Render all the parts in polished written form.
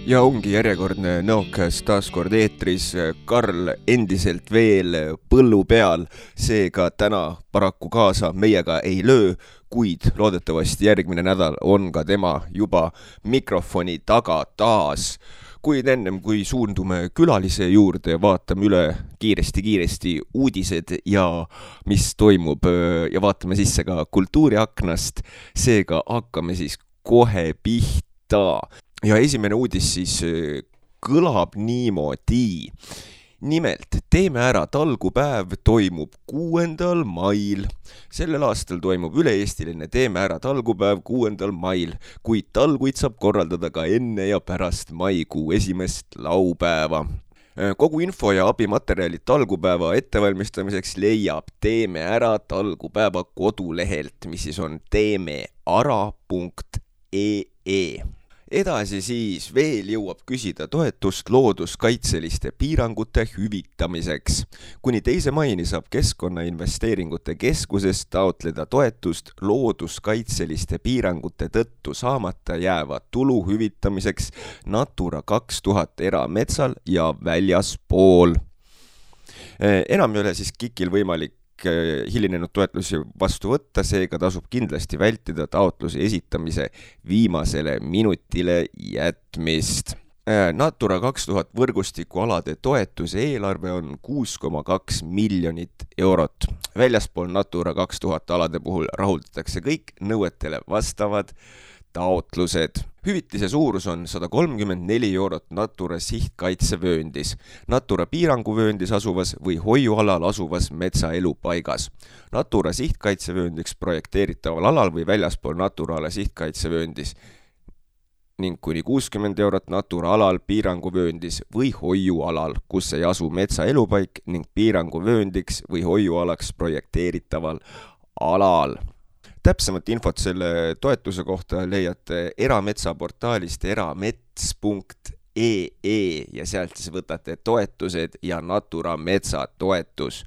Ja ongi järjekordne Nõokäest taas kord eetris, Karl endiselt veel põllu peal, seega täna paraku kaasa meiega ei löö, kuid loodetavasti järgmine nädal on ka tema juba mikrofoni taga taas. Kuid ennem kui suundume külalise juurde, vaatame üle kiiresti uudised ja mis toimub ja vaatame sisse ka kultuuriaknast, seega hakkame siis kohe pihta. Ja esimene uudis siis kõlab niimoodi. Nimelt, Teeme ära talgupäev toimub 6. mail. Sellel aastal toimub üle-eestiline Teeme ära talgupäev 6. mail, kuid talguid saab korraldada ka enne ja pärast maikuu 1. laupäeva. Kogu info ja abimaterjalid talgupäeva ettevalmistamiseks leiab Teeme ära talgupäeva kodulehelt, mis siis on teemeara.ee. Edasi siis veel jõuab küsida toetust looduskaitseliste piirangute hüvitamiseks. Kuni 2. maini saab Keskkonnainvesteeringute Keskusest taotleda toetust looduskaitseliste piirangute tõttu saamata jääva tulu hüvitamiseks Natura 2000 erametsal ja väljaspool. Enam ei ole siis KIK-il võimalik hilinenud toetlusi vastu võtta, seega tasub kindlasti vältida taotluse esitamise viimasele minutile jätmist. Natura 2000 võrgustikualade toetuse eelarve on 6,2 miljonit eurot. Väljaspool Natura 2000 alade puhul rahuldatakse kõik nõuetele vastavad taotlused. Hüvitise suurus on 134 eurot Natura sihtkaitsevööndis, Natura piiranguvööndis asuvas või hoiualal asuvas metsaelupaigas. Natura sihtkaitsevööndiks projekteeritaval alal või väljaspool Natura ala sihtkaitsevööndis ning kuni 60 eurot Natura alal piiranguvööndis või hoiualal, kus ei asu metsaelupaik ning piiranguvööndiks või hoiualaks projekteeritaval alal. Täpsemat infot selle toetuse kohta leiate erametsaportaalist eramets.ee ja sealt siis võtate toetused ja Natura metsatoetus.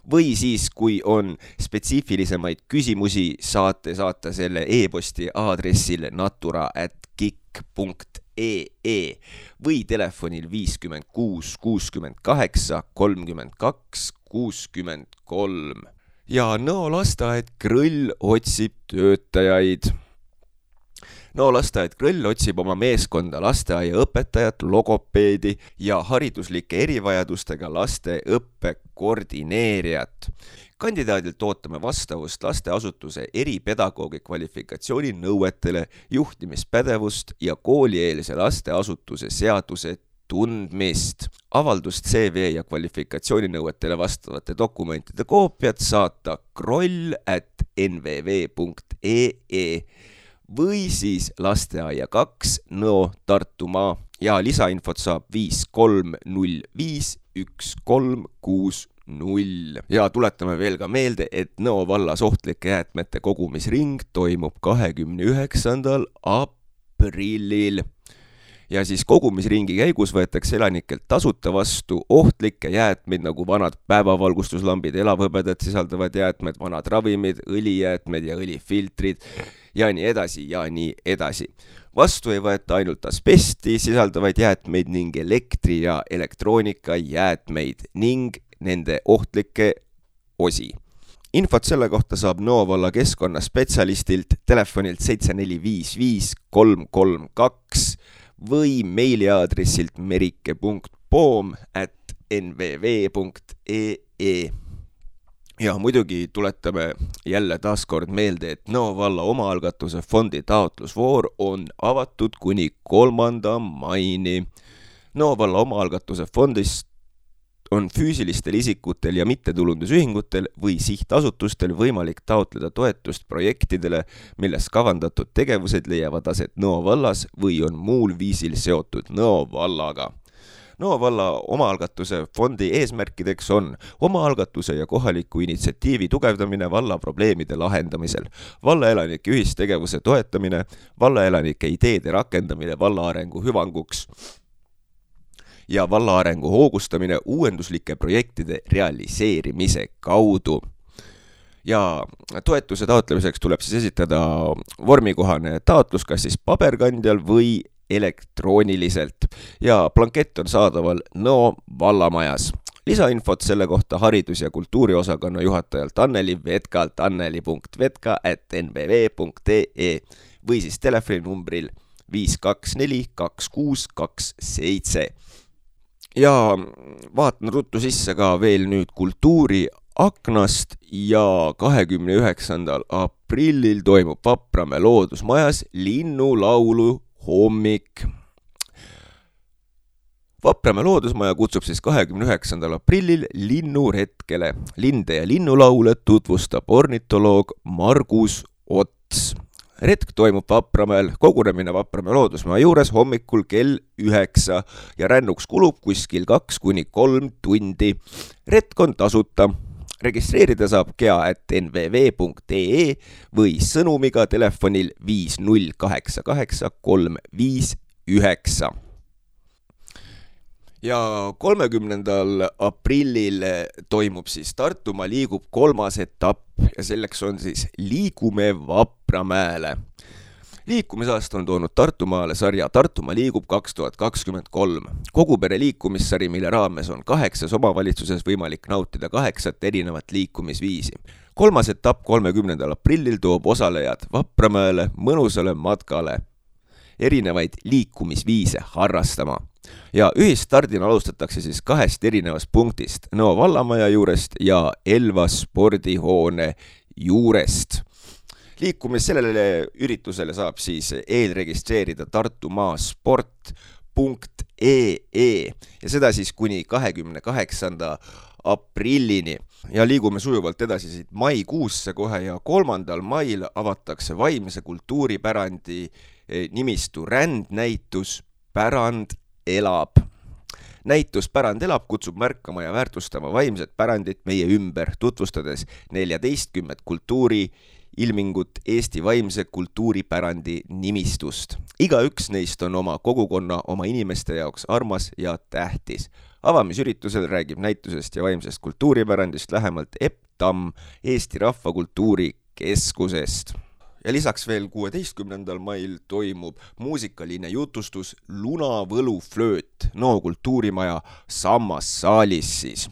Või siis, kui on spetsiifilisemaid küsimusi, saate saata selle e-posti aadressil natura@kik.ee või telefonil 56 68 32 63. Ja Nõo lasteaed Krõll otsib töötajaid. Nõo lasteaed Krõll otsib oma meeskonda lasteaiaõpetajat, logopeedi ja hariduslike erivajadustega laste õppekoordineerijat. Kandidaadilt ootame vastavust lasteasutuse eripedagoogi kvalifikatsiooni nõuetele, juhtimispädevust ja koolieelse lasteasutuse seaduse tundmist. Avaldust CV ja kvalifikatsiooninõuetele vastavate dokumentide koopiat saata kroll@nvv.ee või siis lasteaia 2 Nõo Tartumaa ja lisainfot saab 53051360. Ja tuletame veel ka meelde, et Nõo vallas ohtlike jäätmete kogumisring toimub 29. aprillil. Ja siis kogumisringi käigus võetakse elanikelt tasuta vastu ohtlikke jäätmeid nagu vanad päevavalgustuslambid, elavhõbedat sisaldavad jäätmed, vanad ravimid, õlijäätmed ja õlifiltrid ja nii edasi ja nii edasi. Vastu ei võeta ainult asbesti sisaldavaid jäätmeid ning elektri- ja elektroonikajäätmeid ning nende ohtlikke osi. Infot selle kohta saab Nõo valla keskkonnaspetsialistilt telefonilt 7455 332 või meiliaadressilt merike.poom@nvv.ee. Ja muidugi tuletame jälle taaskord meelde, et Nõo valla omaalgatuse fondi taotlusvoor on avatud kuni 3. maini. Nõo valla omaalgatuse fondist on füüsilistel isikutel ja mittetulundusühingutel või sihtasutustel võimalik taotleda toetust projektidele, milles kavandatud tegevused leiavad aset Nõo vallas või on muul viisil seotud Nõo vallaga. Nõo valla omaalgatuse fondi eesmärkideks on omaalgatuse ja kohaliku initsiatiivi tugevdamine valla probleemide lahendamisel, vallaelanike ühistegevuse toetamine, vallaelanike ideede rakendamine valla arengu hüvanguks ja valla arengu hoogustamine uuenduslike projektide realiseerimise kaudu. Ja toetuse taotlemiseks tuleb siis esitada vormikohane taotlus kas siis paberkandjal või elektrooniliselt ja blankett on saadaval Nõo vallamajas. Lisainfot selle kohta haridus- ja kultuuriosakonna juhatajalt Anneli Vetkalt anneli.vetka@nbv.ee või siis telefoninumbril 5242627. Ja vaatan ruttu sisse ka veel nüüd kultuuriaknast ja 29. aprillil toimub Vapramäe loodusmajas linnulaulu hommik. Vapramäe loodusmaja kutsub siis 29. aprillil linnuretkele. Linde ja linnulaule tutvustab ornitoloog Margus Ots. Retk toimub Vapramäel, kogunemine Vapramäe loodusmaja juures hommikul kell 9 ja rännuks kulub kuskil 2-3 tundi. Retk on tasuta. Registreerida saab kea@nvv.ee või sõnumiga telefonil 5088359. Ja 30. aprillil toimub siis Tartumaa liigub 3. etapp ja selleks on siis Liigume Vapramäele. Liikumisaasta on toonud Tartumaale sarja Tartumaa liigub 2023. Kogupere liikumissari, mille raames on 8 omavalitsuses võimalik nautida 8 erinevat liikumisviisi. 3. etapp 30. aprillil toob osalejad Vapramäele mõnusale matkale erinevaid liikumisviise harrastama. Ja ühistardina alustatakse siis 2 erinevast punktist, Nõo vallamaja juurest ja Elva spordihoone juurest. Liikumis sellele üritusele saab siis eelregistreerida tartumasport.ee ja seda siis kuni 28. aprillini. Ja liigume sujuvalt edasi siit maikuusse kohe ja 3. mail avatakse vaimse kultuuripärandi nimistu rändnäitus Pärand elab. Näitus Pärand elab kutsub märkama ja väärtustama vaimset pärandit meie ümber, tutvustades 14 kultuuriilmingut Eesti vaimse kultuuripärandi nimistust. Igaüks neist on oma kogukonna, oma inimeste jaoks armas ja tähtis. Avamisüritusel räägib näitusest ja vaimsest kultuuripärandist lähemalt Epp Tamm Eesti Rahvakultuuri Keskusest. Ja lisaks veel 16. mail toimub muusikaline jutustus Lunavõluflööt Nõo kultuurimaja Sammassaalis siis.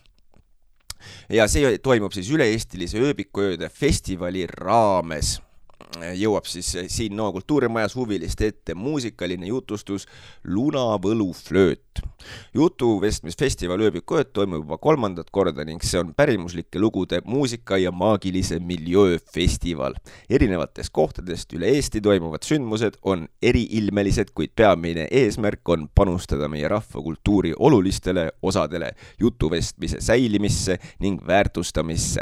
Ja see toimub siis üle-eestilise ööbikuööde festivali raames. Jõuab siis siin Nõo kultuurimajas huviliste ette muusikaline jutustus Lunavõluflööt. Jutuvestmisfestival ööbikuööd toimub juba 3. korda ning see on pärimuslike lugude muusika ja maagilise miljöö festival. Erinevatest kohtadest üle Eesti toimuvad sündmused on eriilmelised, kuid peamine eesmärk on panustada meie rahvakultuuri olulistele osadele jutuvestmise säilimisse ning väärtustamisse.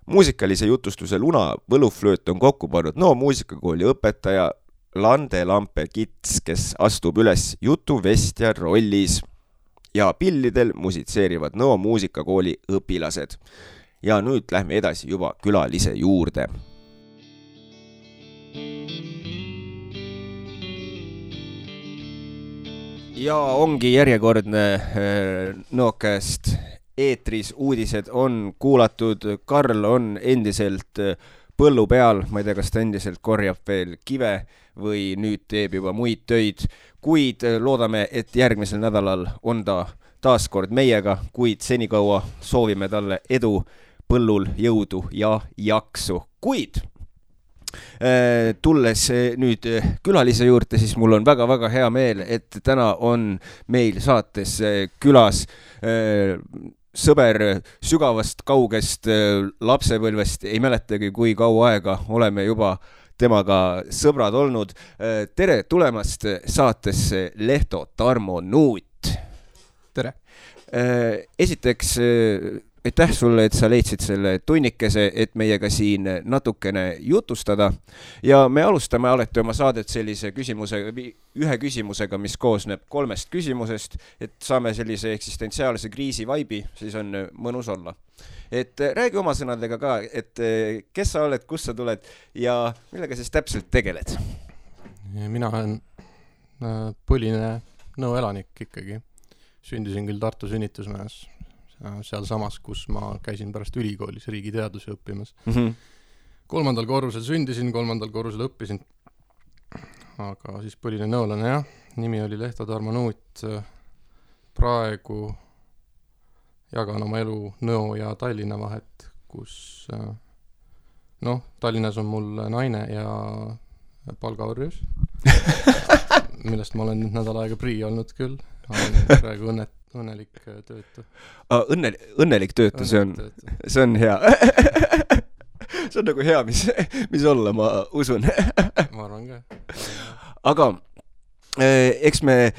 Muusikalise jutustuse Lunavõluflööt on kokku pannud Nõo muusikakooli õpetaja Lande Lampe-Kits, kes astub üles jutuvestja rollis ja pillidel musitseerivad Nõo muusikakooli õpilased. Ja nüüd lähme edasi juba külalise juurde. Ja ongi järjekordne Nõokast eetris uudised on kuulatud, Karl on endiselt põllu peal, ma ei tea, kas ta endiselt korjab veel kive või nüüd teeb juba muid töid, kuid loodame, et järgmisel nädalal on ta taas kord meiega, kuid senikaua soovime talle edu põllul, jõudu ja jaksu. Kuid tulles nüüd külalise juurde, siis mul on väga-väga hea meel, et täna on meil saates külas sõber sügavast kaugest lapsepõlvest, ei mäletagi, kui kaua aega oleme juba temaga sõbrad olnud. Tere tulemast saatesse Lehto Tarmo Nuut. Tere. Esiteks, aitäh sulle, et sa leidsid selle tunnikese, et meiega siin natukene jutustada. Ja me alustame alati oma saadet sellise ühe küsimusega, mis koosneb 3 küsimusest, et saame sellise eksistentsiaalse kriisi vaibi, siis on mõnus olla. Et räägi oma sõnadega ka, et kes sa oled, kust sa tuled ja millega siis täpselt tegeled? Mina olen põline Nõo elanik ikkagi. Sündisin küll Tartu sünnitusmajas, seal samas, kus ma käisin pärast ülikoolis riigiteadusi õppimas. 3. korrusel sündisin, 3. korrusel õppisin. aga siis põhiline nõolane jah, nimi oli Lehto Tarmo Nuut. Praegu jagan oma elu Nõo ja Tallinna vahet, kus Tallinnas on mul naine ja palgaorjus, millest ma olen nüüd nädal aega prii olnud küll. Olen praegu õnnelik töötu. Õnnelik töötu, see on hea. See on nagu hea, mis olla, ma usun. Ma arvan ka. Aga eks me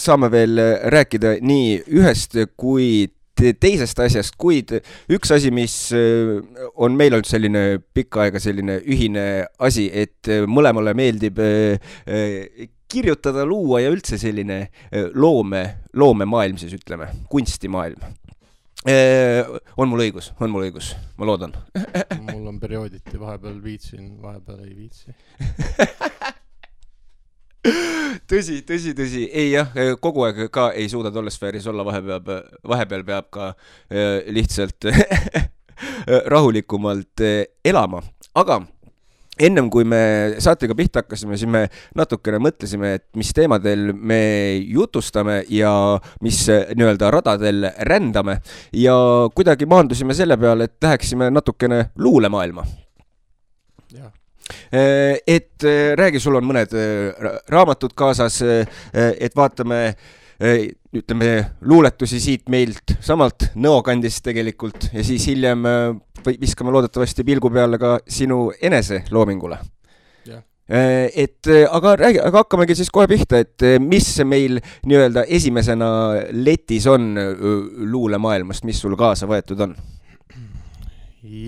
saame veel rääkida nii ühest kui teisest asjast, kuid üks asi, mis on meil olnud selline pikka aega selline ühine asi, et mõlemale meeldib kirjutada, luua ja üldse selline loomemaailm, siis ütleme, kunstimaailm. On mul õigus, ma loodan. Mul on periooditi, vahepeal viitsin, vahepeal ei viitsi. Tõsi. Ei jah, kogu aeg ka ei suuda tollesfääris olla, vahepeal peab ka lihtsalt rahulikumalt elama. Aga ennem kui me saatega pihta hakkasime, siis me natukene mõtlesime, et mis teemadel me jutustame ja mis nii-öelda radadel rändame ja kuidagi maandusime selle peale, et läheksime natukene luulemaailma. Jah. Et räägi, sul on mõned raamatud kaasas, et vaatame, ütleme, luuletusi siit meilt samalt Nõokandist tegelikult ja siis hiljem viskame loodetavasti pilgu peale ka sinu enese loomingule. Yeah. Aga hakkamegi siis kohe pihta, et mis meil nii-öelda esimesena letis on luulemaailmast, mis sul kaasa võetud on?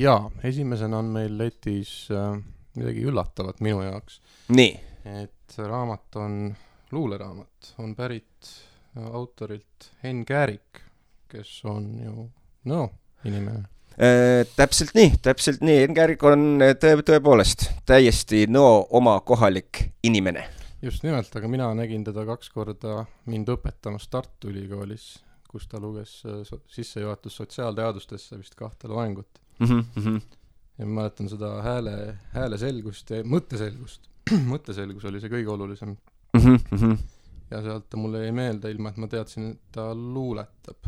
Jaa, esimesena on meil letis midagi üllatavat minu jaoks. Nii. Et raamat on luuleraamat, on pärit autorilt Henn Käärik, kes on ju inimene. Täpselt nii. Henn Käärik on tõepoolest täiesti oma kohalik inimene. Just nimelt, aga mina nägin teda 2 korda mind õpetamas Tartu Ülikoolis, kus ta luges sissejuhatus sotsiaalteadustesse vist 2 loengut. Ja ma mäletan seda hääle selgust ja mõtteselgust. Mõtteselgus oli see kõige olulisem. Ja sealt ta mulle ei meelde ilma, et ma teadsin, et ta luuletab.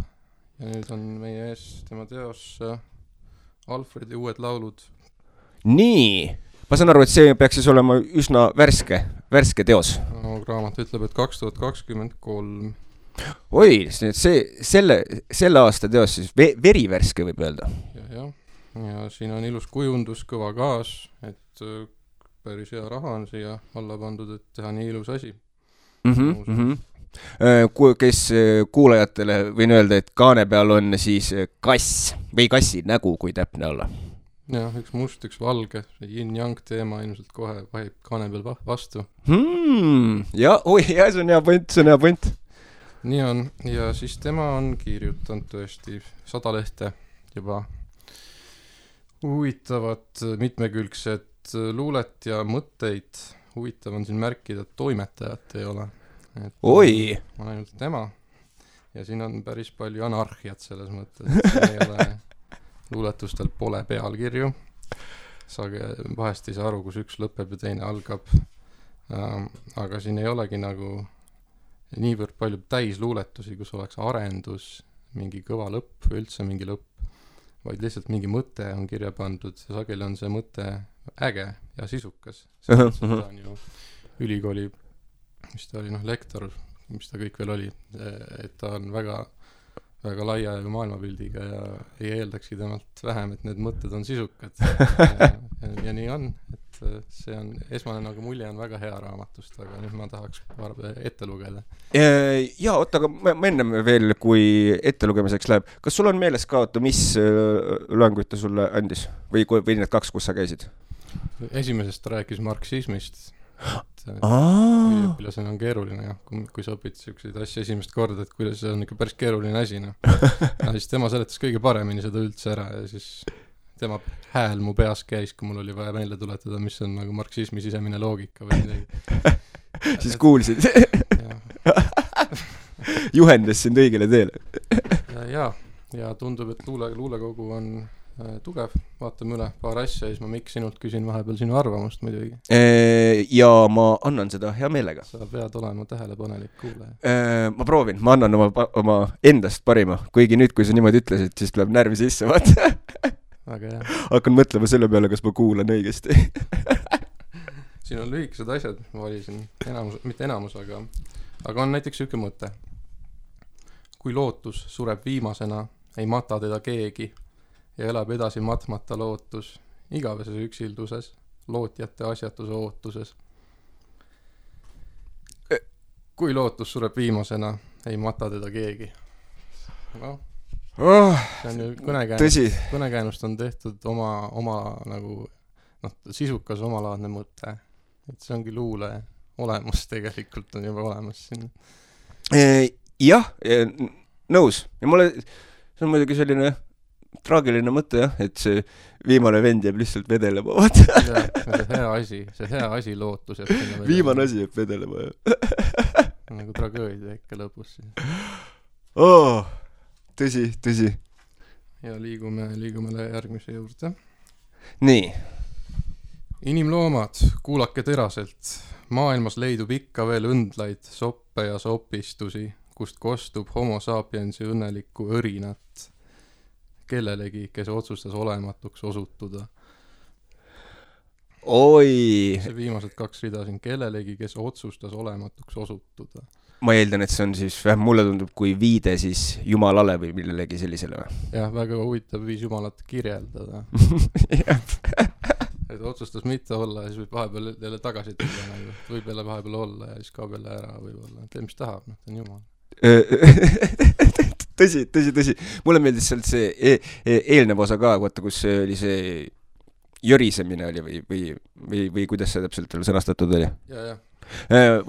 Ja nüüd on meie ees tema teos Alfredi uued laulud. Nii, ma saan aru, et see peaks siis olema üsna värske teos. Raamat ütleb, et 2023. Oi, selle aasta teos siis verivärske võib öelda. Ja siin on ilus kujundus, kõva gaas, et päris hea raha on siia alla pandud, et teha nii ilus asi. Kes kuulajatele võin öelda, et kaane peal on siis kass või kassi nägu, kui täpne olla. Jah, üks must, üks valge, yin-yang teema ilmselt kohe vahib kaane peal vastu. Ja, see on hea point. Nii on, ja siis tema on kirjutanud tõesti 100 lehte juba huvitavat mitmekülgset luulet ja mõtteid. Huvitav on siin märkida, et toimetajat ei ole. Oi! On ainult tema. Ja siin on päris palju anarhiat selles mõttes. Siin ei ole luuletustel pole pealkirju. Vahest ei saa aru, kus üks lõpeb ja teine algab. Aga siin ei olegi nagu niivõrd palju täis luuletusi, kus oleks arendus, mingi kõva lõpp või üldse mingi lõpp. Vaid lihtsalt mingi mõte on kirja pandud ja sageli on see mõte äge ja sisukas. Seda on ju ülikooli, mis ta oli, lektor, mis ta kõik veel oli, et ta on väga, väga laia maailmapildiga ja ei eeldakski temalt vähem, et need mõtted on sisukad. Ja nii on, et see on esmane nagu mulje on väga hea raamatust, aga nüüd ma tahaks ette lugeda. Ja, oota, aga ma ennem veel, kui ette lugemiseks läheb, kas sul on meeles ka, mis loenguid ta sulle andis? Või need 2, kus sa käisid? Esimesest ta rääkis marksismist. Üliõpilasena on keeruline, kui sa õpid selliseid asju esimest korda, et kuidas see on ikka päris keeruline asi. Ja siis tema seletas kõige paremini seda üldse ära ja siis tema hääl mu peas käis, kui mul oli vaja meelde tuletada, mis on nagu marksismi sisemine loogika või midagi. Siis kuulsid. Juhendas sind õigele teele. Ja tundub, et luulekogu on tugev, vaatame üle paar asja ja siis ma Mikk sinult küsin vahepeal sinu arvamust muidugi. Ja ma annan seda hea meelega. Sa pead olema tähelepanelik kuulaja. Ma proovin, ma annan oma endast parima, kuigi nüüd, kui sa niimoodi ütlesid, siis tuleb närvi sisse, vaata. Väga hea. Hakkan mõtlema selle peale, kas ma kuulan õigesti. Siin on lühikesed asjad, ma valisin mitte enamus, aga on näiteks üks mõte. Kui lootus sureb viimasena, ei mata teda keegi ja elab edasi matmata lootus, igaveses üksilduses, lootjate asjatuse ootuses. Kui lootus sureb viimasena, ei mata teda keegi. No, see on ju kõnekäänust on tehtud oma nagu, sisukas omalaadne mõte. Et see ongi luule olemus tegelikult on juba olemas siin. Jah, nõus. Ja mulle, see on muidugi selline traagiline mõte, jah, et see viimane vend jääb lihtsalt vedelema, vaata. See hea asi lootus jääb sinna vedelema. Viimane asi jääb vedelema, jah. Nagu tragöödia ikka lõpus. Tõsi. Ja liigume järgmise juurde. Nii. Inimloomad, kuulake teraselt. Maailmas leidub ikka veel õndlaid, soppe ja sopistusi, kust kostub homo sapiensi õnnelikku õrinat. Kellelegi, kes otsustas olematuks osutuda. Oi! See viimased 2 rida siin. Kellelegi, kes otsustas olematuks osutuda. Ma eeldan, et see on siis, mulle tundub kui viide siis jumalale või millelegi sellisele. Jah, väga huvitav viis jumalat kirjeldada. Et otsustas mitte olla ja siis võib vahepeal jälle tagasi tulla. Võib jälle vahepeal olla ja siis kaob jälle ära võib-olla. Tee, mis tahab, ta on jumal. Tõsi. Mulle meeldis sealt see eelnev osa ka, vaata, kus oli see jõrisemine oli või kuidas see täpselt sõnastatud oli? Ja.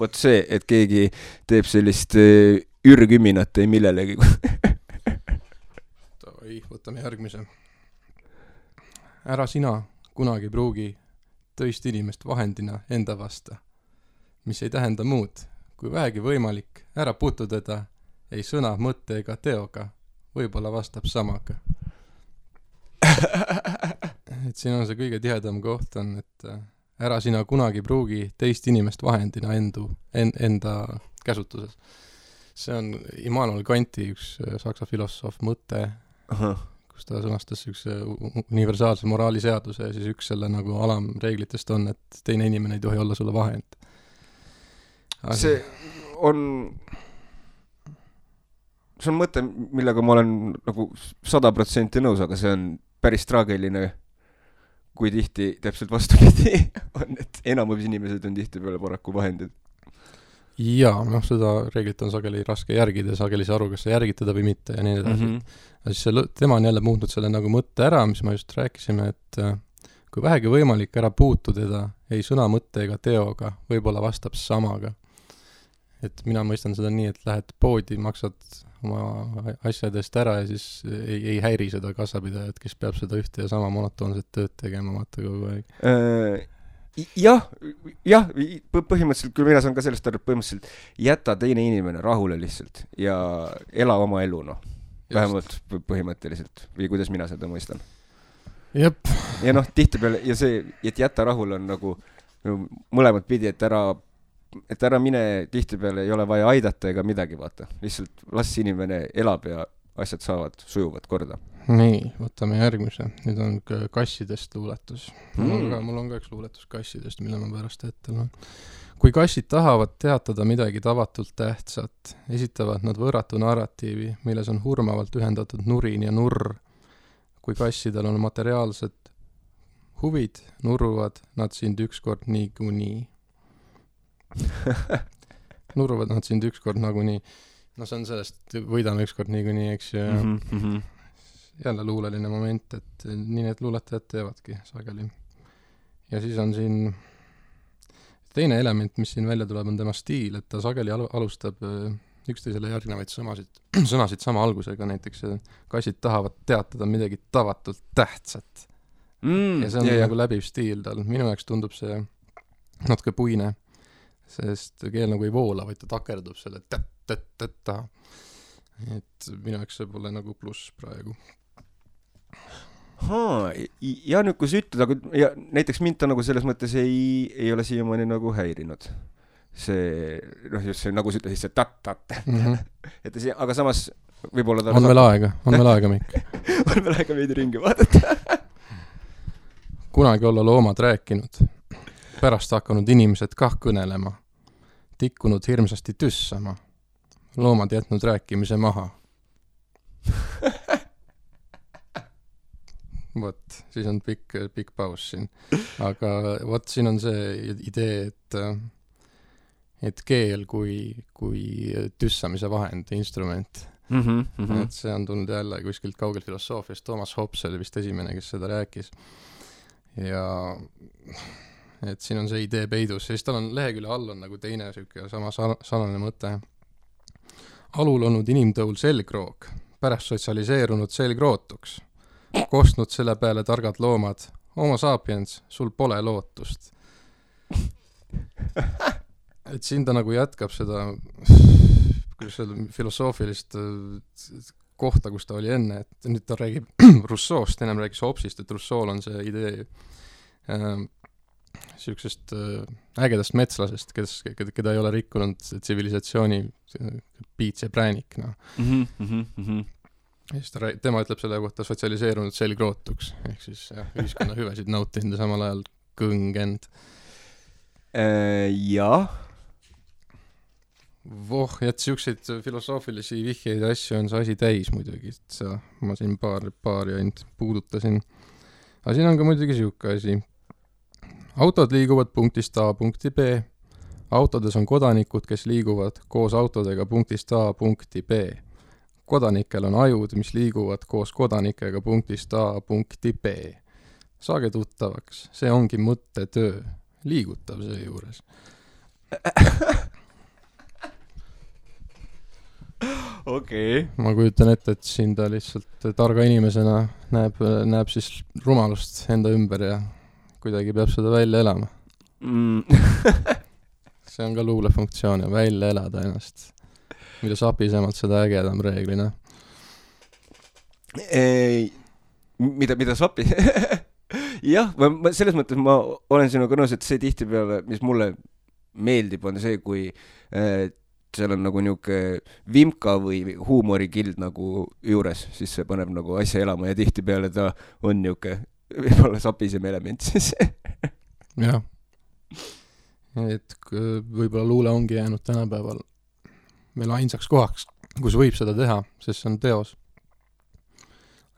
Vot see, et keegi teeb sellist ürgüminat ei millelegi. Võtame järgmise. Ära sina kunagi pruugi tõist inimest vahendina enda vasta, mis ei tähenda muud, kui vähegi võimalik, ära puutu teda, ei sõna, mõtte ega teoga, võib-olla vastab samaga. Et siin on see kõige tihedam koht on, et ära sina kunagi pruugi teist inimest vahendina enda käsutuses. See on Immanuel Kanti üks saksa filosoof mõte, kus ta sõnastas üks universaalse moraaliseaduse ja siis üks selle nagu alamreeglitest on, et teine inimene ei tohi olla sulle vahend. See on mõte, millega ma olen nagu 100% nõus, aga see on päris traagiline, kui tihti täpselt vastupidi on, et enamus inimesed on tihti peale paraku vahendid. Jaa, seda reeglit on sageli raske järgida, sageli see aru, kas sa järgid teda või mitte ja nii edasi. Siis tema on jälle muutnud selle nagu mõtte ära, mis ma just rääkisime, et kui vähegi võimalik ära puutu teda, ei sõna, mõtte ega teoga, võib-olla vastab samaga. Et mina mõistan seda nii, et lähed poodi, maksad oma asjadest ära ja siis ei häiri seda kassapidajat, kes peab seda ühte ja sama monotoonset tööd tegema vaata kogu aeg. Jah, põhimõtteliselt, kui mina saan ka sellest aru, põhimõtteliselt jäta teine inimene rahule lihtsalt ja ela oma elu, vähemalt põhimõtteliselt, või kuidas mina seda mõistan. Jep. Ja tihtipeale, ja see, et jäta rahule on nagu mõlemad pidi, et ära mine, tihtipeale ei ole vaja aidata ega midagi, vaata. Lihtsalt las inimene elab ja asjad saavad sujuvad korda. Nii, võtame järgmise. Nüüd on kassidest luuletus. Mul on ka üks luuletus kassidest, mille ma pärast ette loen. Kui kassid tahavad teatada midagi tavatult tähtsat, esitavad nad võrratu narratiivi, milles on hurmavalt ühendatud nurin ja nurr. Kui kassidel on materiaalsed huvid, nurruvad nad sind ükskord niikuinii. Nurruvad nad sind ükskord nagunii. See on sellest, võidame ükskord niikuinii, eks ju. Jälle luuleline moment, et nii need luuletajad teevadki sageli. Ja siis on siin teine element, mis siin välja tuleb, on tema stiil, et ta sageli alustab üksteisele järgnevaid sõnasid sama algusega, näiteks kassid tahavad teatada midagi tavatult tähtsat. Ja see on nagu läbiv stiil tal. Minu jaoks tundub see natuke puine, sest keel nagu ei voola, vaid ta takerdub selle et minu jaoks see pole nagu pluss praegu. ja nüüd, kui sa ütled, aga ja näiteks mind ta nagu selles mõttes ei ole siiamaani nagu häirinud. See, just see, nagu sa ütlesid, see tat-tat. Et see, aga samas võib-olla on meil aega, Mikk. On meil aega veidi ringi vaadata. Kunagi olla loomad rääkinud, pärast hakanud inimesed kah kõnelema, tikkunud hirmsasti tüssama, loomad jätnud rääkimise maha. Vot, siis on pikk paus siin. Aga vot siin on see idee, et keel kui tüssamise vahend, instrument. Et see on tulnud jälle kuskilt kaugelt filosoofiast. Thomas Hobbes oli vist esimene, kes seda rääkis. Ja et siin on see idee peidus. Siis tal on lehekülje all on nagu teine süke sama sarnane mõte. Alul olnud inimtõul selgroog, pärast sotsialiseerunud selgrootuks. Kostnud selle peale targad loomad. Homo sapiens, sul pole lootust. Et siin ta nagu jätkab seda filosoofilist kohta, kus ta oli enne, et nüüd ta räägib Rousseau'st, ennem räägis Hobbesist, et Rousseau'l on see idee siuksest ägedast metslasest, keda ei ole rikkunud tsivilisatsiooni piits ja präänik. No. Ja siis tema ütleb selle kohta sotsialiseerunud selgrootuks, ehk siis ühiskonna hüvesid nautinud ja samal ajal kõngend. Jah. Voh, ja et siukseid filosoofilisi vihjeid asju on see asi täis muidugi, et ma siin paari ainult puudutasin. Aga siin on ka muidugi siuke asi. Autod liiguvad punktist A punkti B. Autodes on kodanikud, kes liiguvad koos autodega punktist A punkti B. Kodanikel on ajud, mis liiguvad koos kodanikega punktist A punkti B. Saage tuttavaks, see ongi mõttetöö. Liigutav see juures. Okei. Ma kujutan ette, et siin ta lihtsalt targa inimesena näeb siis rumalust enda ümber ja kuidagi peab seda välja elama. See on ka luulefunktsioon ja välja elada ennast. Mida sapisemalt seda ägedam reeglina. Mida sapi? Jah, selles mõttes ma olen sinuga nõus, et see tihtipeale, mis mulle meeldib, on see, kui seal on nagu niuke vimka või huumorikild nagu juures, siis see paneb nagu asja elama ja tihtipeale ta on niuke võib-olla sapisem element siis. Jah. Et võib-olla luule ongi jäänud tänapäeval meil ainsaks kohaks, kus võib seda teha, sest see on teos.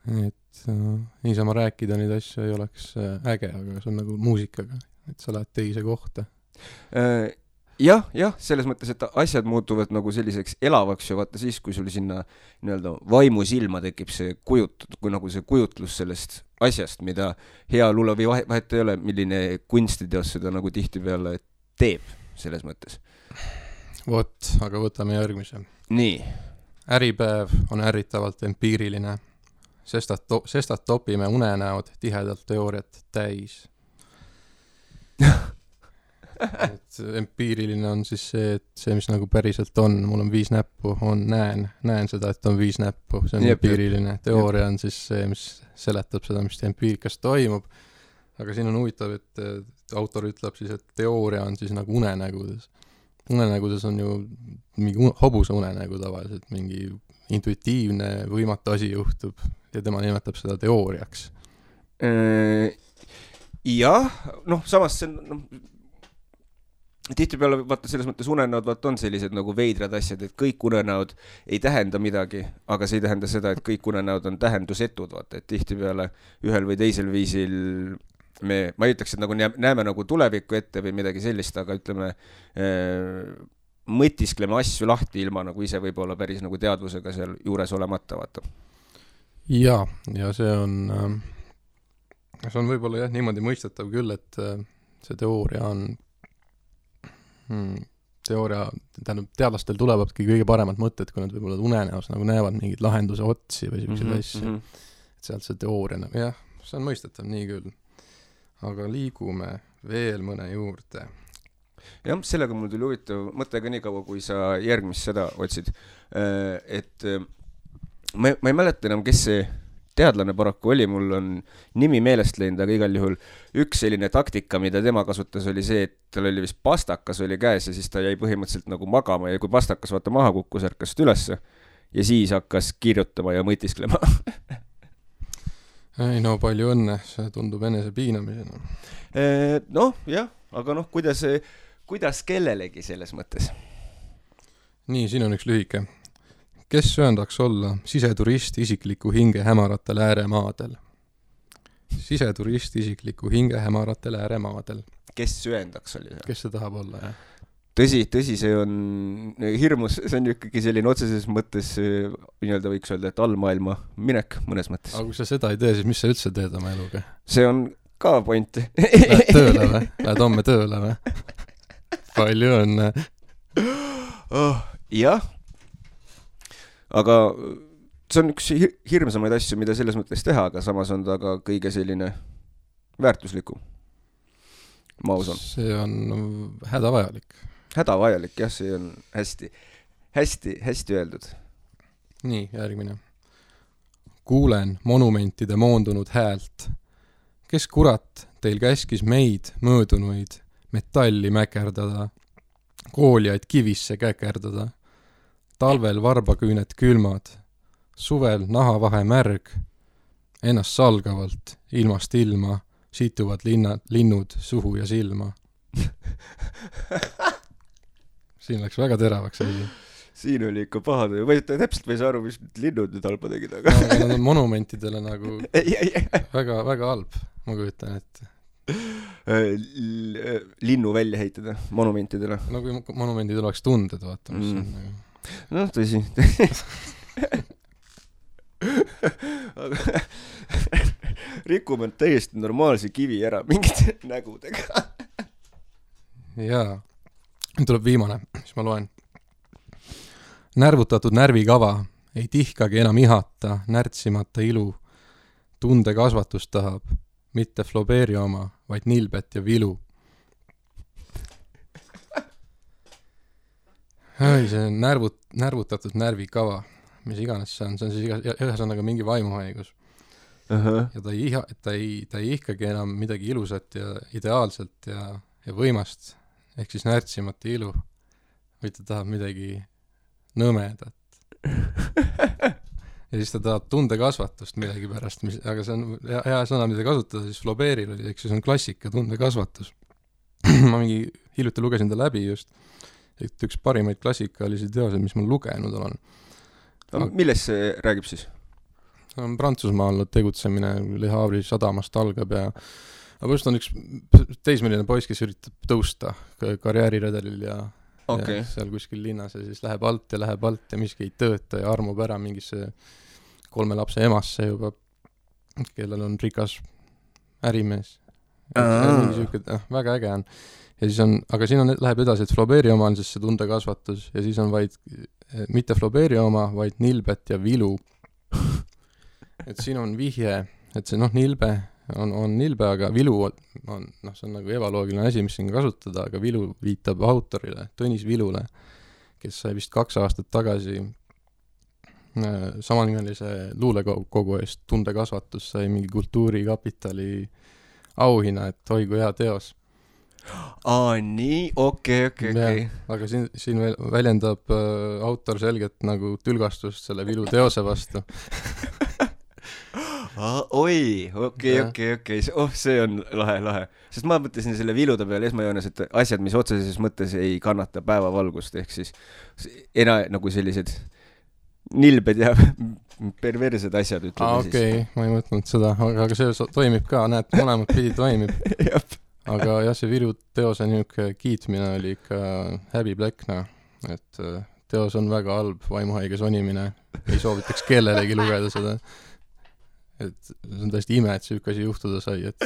Et niisama rääkida neid asju ei oleks äge, aga see on nagu muusikaga, et sa lähed teise kohta. Jah, selles mõttes, et asjad muutuvad nagu selliseks elavaks ja vaata siis, kui sul sinna nii-öelda vaimu silma tekib see kui nagu see kujutlus sellest asjast, mida hea luule või vahet ei ole, milline kunstiteos seda nagu tihtipeale teeb selles mõttes. Vot, aga võtame järgmise. Nii. Äripäev on ärritavalt empiiriline, sestad topime unenäod tihedalt teooriat täis. Et empiiriline on siis see, et see, mis nagu päriselt on, mul on 5 näppu, näen seda, et on 5 näppu, see on empiiriline. Teooria on siis see, mis seletab seda, mis empiirikas toimub. Aga siin on huvitav, et autor ütleb siis, et teooria on siis nagu unenägudes. Unenägudes on ju mingi hobuse unenägu tavaliselt, mingi intuitiivne võimatu asi juhtub ja tema nimetab seda teooriaks. Jah, samas see tihtipeale vaata selles mõttes unenäod on sellised nagu veidrad asjad, et kõik unenäod ei tähenda midagi, aga see ei tähenda seda, et kõik unenäod on tähendusetud, vaata, et tihtipeale ühel või teisel viisil ma ei ütleks, et nagu näeme nagu tulevikku ette või midagi sellist, aga ütleme, mõtiskleme asju lahti ilma nagu ise võib-olla päris nagu teadvusega seal juures olemata, vaata. Ja see on võib-olla jah niimoodi mõistetav küll, et see teooria on tähendab, teadlastel tulevadki kõige paremad mõtted, kui nad võib-olla unenäos nagu näevad mingid lahenduse otsi või selliseid asju. Et sealt see teooria, jah, see on mõistetav nii küll. Aga liigume veel mõne juurde. Jah, sellega mul tuli huvitav mõttega nii kaua, kui sa järgmist seda otsid. Et ma ei mäleta enam, kes see teadlane paraku oli, mul on nimi meelest läinud, aga igal juhul üks selline taktika, mida tema kasutas, oli see, et tal oli vist pastakas oli käes ja siis ta jäi põhimõtteliselt nagu magama ja kui pastakas vaata maha kukkus, ärkas ülesse ja siis hakkas kirjutama ja mõtisklema. Ei no palju õnne, see tundub enese piinamisena. Noh, jah, aga noh, kuidas kellelegi selles mõttes? Nii, siin on üks lühike. Kes sööndaks olla siseturist isikliku hinge hämaratel ääremaadel? Siseturist isikliku hinge hämaratel ääremaadel. Kes sööndaks oli? Kes see tahab olla, jah? Tõsi, see on hirmus, see on ikkagi selline otseses mõttes, nii-öelda võiks öelda, et allmaailma minek mõnes mõttes. Aga kui sa seda ei tee, siis mis sa üldse teed oma eluga? See on ka point. Lähed tööle või? Lähed homme tööle või? Palju õnne. Jah. Aga see on üks hirmsamaid asju, mida selles mõttes teha, aga samas on ta ka kõige selline väärtuslikum. Ma usun. See on hädavajalik. Hädavajalik, jah, see on hästi öeldud. Nii, järgmine. Kuulen monumentide moondunud häält. Kes kurat teil käskis meid möödunuid metalli mäkerdada, kooliaid kivisse käkerdada? Talvel varbaküünet külmad, suvel nahavahe märg, ennast salgavalt, ilmast ilma, situvad linnud suhu ja silma. Siin läks väga teravaks. Siin oli ikka pahad, täpselt võis aru, mis linnud nüüd halba tegid, aga... No, nad on monumentidele nagu väga, väga halb, ma kujutan, et... Linnu välja heitada monumentidele. No kui monumendid oleks tunded, vaata, mis on nagu... Noh, tõsi. Rikume täiesti normaalse kivi ära mingite nägudega. Jaa. Nüüd tuleb viimane, mis ma loen. Närvutatud närvikava ei tihkagi enam ihata, närtsimata ilu. Tunde kasvatust tahab, mitte Flaubert'i oma, vaid nilbet ja vilu. Ei, see on närvutatud närvikava, mis iganes see on siis ühesõnaga mingi vaimuhaigus. Ja ta ei ihkagi enam midagi ilusat ja ideaalselt ja võimast, ehk siis närtsimata ilu, või ta tahab midagi nõmedat. Ja siis ta tahab tundekasvatust midagi pärast, aga see on hea sõna, mida kasutada, siis Flaubert'il oli, ehk siis on klassika tundekasvatus. Ma mingi hiljuti lugesin ta läbi just, et üks parimaid klassikalisi teoseid, mis ma lugenud olen. Millest see räägib siis? Prantsusmaal tegutsemine Le Havre'i sadamast algab ja just on üks teismeline poiss, kes üritab tõusta karjääriredelil ja seal kuskil linnas ja siis läheb alt ja miski ei tööta ja armub ära mingisse 3 lapse emasse juba, kellel on rikas ärimees. Väga äge on. Ja siis on, aga siin läheb edasi, et Flaubert'i oma on siis see tundekasvatus ja siis on vaid, mitte Flaubert'i oma, vaid nilbet ja vilu. Et siin on vihje, et see nilbe on nilbe, aga vilu on, see on nagu ebaloogiline asi, mis siin kasutada, aga vilu viitab autorile, Tõnis Vilule, kes sai vist 2 aastat tagasi samanimelise luulekogu eest tundekasvatus, sai mingi Kultuurikapitali auhinna, et oi kui hea teos. Nii, okei. Aga siin väljendab autor selgelt nagu tülgastust selle vilu teose vastu. Okei. See on lahe. Sest ma mõtlesin selle vilude peale esmajoones, et asjad, mis otseses mõttes ei kannata päevavalgust, ehk siis nagu sellised nilbed ja perversed asjad, ütleme siis. Okei, ma ei mõtlenud seda, aga see toimib ka, näed, mõlemad pidi toimib. Aga jah, see vilu teose niisugune kiitmine oli ikka häbiplekna, et teos on väga halb, vaimuhaige sonimine, ei soovitaks kellelegi lugeda seda. Et see on täiesti ime, et see asi juhtuda sai, et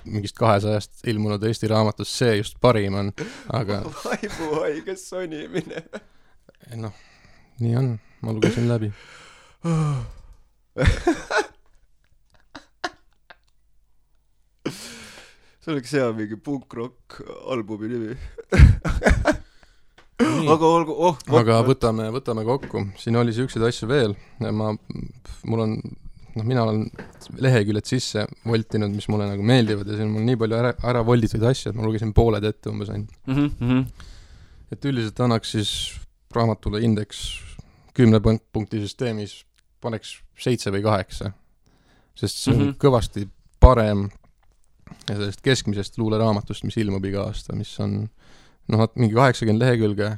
mingist 200 ilmunud Eesti raamatus see just parim on, aga... Vaimuhaige sonimine. Nii on, ma lugesin läbi. See oleks hea mingi punk-rock albumi nimi. aga olgu, aga võtame kokku. Siin oli siukseid asju veel. Mina olen leheküljed sisse voltinud, mis mulle nagu meeldivad ja siin mul nii palju ära volditud asju, et ma lugesin pooled ette umbes ainult. Et üldiselt annaks siis raamatule indeks 10 punkti süsteemis paneks 7 või 8, sest see on kõvasti parem sellest keskmisest luuleraamatust, mis ilmub iga aasta, mis on mingi 80 lehekülge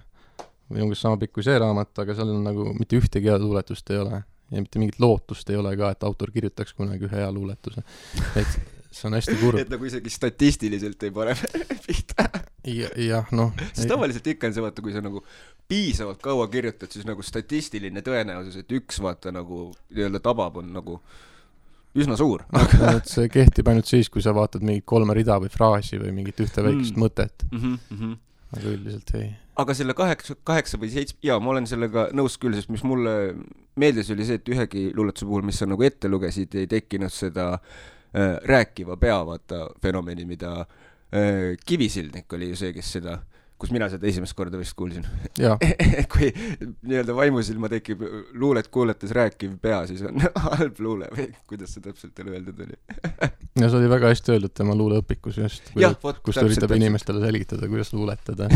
või umbes sama pikk kui see raamat, aga seal on nagu mitte ühtegi head luuletust ei ole ja mitte mingit lootust ei ole ka, et autor kirjutaks kunagi ühe hea luuletuse. Et see on hästi kurb. Et nagu isegi statistiliselt ei pane pihta. Jah, Sest tavaliselt ikka on see, vaata, kui sa nagu piisavalt kaua kirjutad, siis nagu statistiline tõenäosus, et üks vaata nagu nii-öelda tabab on nagu üsna suur. Et see kehtib ainult siis, kui sa vaatad mingit 3 rida või fraasi või mingit ühte väikest mõtet. Aga üldiselt ei. Aga selle 8 või 7, ma olen sellega nõus küll, sest mis mulle meeldis oli see, et ühegi luuletuse puhul, mis sa nagu ette lugesid, ei tekkinud seda rääkiva pea, vaata, fenomeni, mida Kivisildnik oli ju see, kes seda, kus mina seda esimest korda vist kuulsin. Kui nii-öelda vaimusilma tekib luulet kuuletes rääkiv pea, siis on halb luule või kuidas see täpselt teile öeldud oli? Ja see oli väga hästi öeldud tema luuleõpikus just, kus ta üritab inimestele selgitada, kuidas luuletada.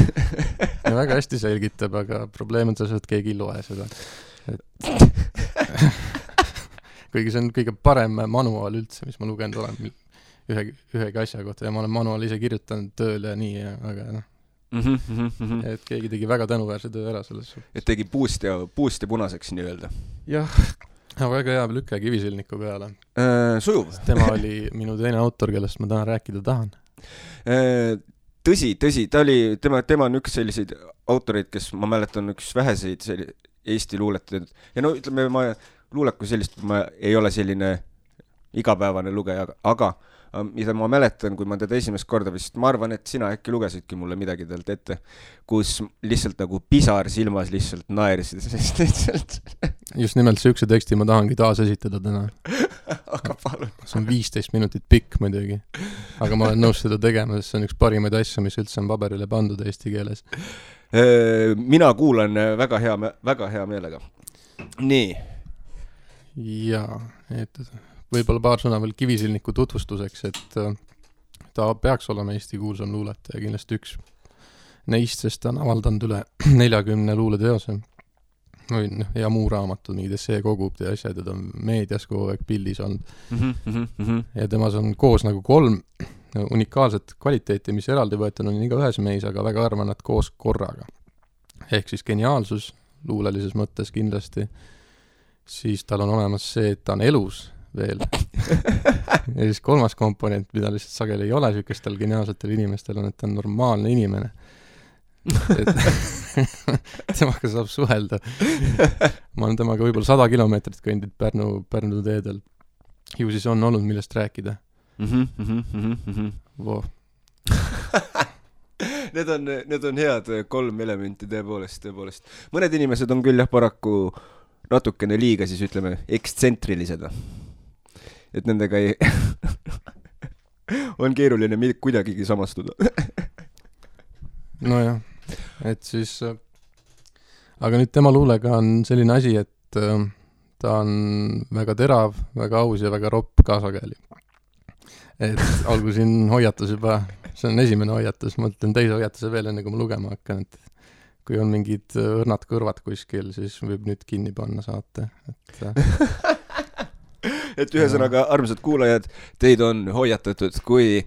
Ja väga hästi selgitab, aga probleem on see, et keegi ei loe seda. Kuigi see on kõige parem manuaal üldse, mis ma lugenud olen ühegi asja kohta ja ma olen manuaal ise kirjutanud tööl ja nii, aga et keegi tegi väga tänuväärse töö ära selles suhtes. Et tegi puust ja punaseks nii-öelda. Jah, väga hea lükke Kivisildniku peale. Sujuv. Tema oli minu teine autor, kellest ma täna rääkida tahan. Tõsi, tema on üks selliseid autoreid, kes ma mäletan üks väheseid Eesti luuletajaid. Ja ütleme, luuleku sellist, ma ei ole selline igapäevane lugeja, aga mida ma mäletan, kui ma teda esimest korda vist, ma arvan, et sina äkki lugesidki mulle midagi talt ette, kus lihtsalt nagu pisar silmas lihtsalt naerisid, sest lihtsalt just nimelt see teksti ma tahangi taas esitada täna. Aga palun. See on 15 minutit pikk muidugi, aga ma olen nõus seda tegema, sest see on üks parimaid asju, mis üldse on paberile pandud eesti keeles. Mina kuulan väga hea meelega. Nii. Jaa, võib-olla paar sõna veel Kivisildniku tutvustuseks, et ta peaks olema Eesti kuulsam luuletaja, kindlasti üks neist, sest ta on avaldanud üle 40 luuleteose ja muu raamatud, mingid esseekogud ja asjad, ta on meedias kogu aeg pildis olnud. Ja temas on koos nagu 3 unikaalset kvaliteeti, mis eraldi võetud on iga ühes meis, aga väga arvan, et koos korraga. Ehk siis geniaalsus luulelises mõttes kindlasti, siis tal on olemas see, et ta on elus veel. Ja siis 3. komponent, mida lihtsalt sageli ei ole sükestel geniaalsetel inimestel, on, et ta on normaalne inimene. Temaga saab suhelda. Ma olen temaga võib-olla 100 kilomeetrit kõndid Pärnu teedel. Ju siis on olnud millest rääkida. Wow. Need on head 3 elementi tõepoolest. Mõned inimesed on küll paraku natukene liiga, siis ütleme, ekstsentrilised. Et nendega ei on keeruline kuidagigi samastuda. Nojah, et siis aga nüüd tema luulega on selline asi, et ta on väga terav, väga aus ja väga ropp kaasageli. Et olgu siin hoiatus juba, see on esimene hoiatus, ma ütlen teise hoiatuse veel enne, kui ma lugema hakkan, et kui on mingid õrnad kõrvad kuskil, siis võib nüüd kinni panna saate. Et ühesõnaga, armsad kuulajad, teid on hoiatatud, kui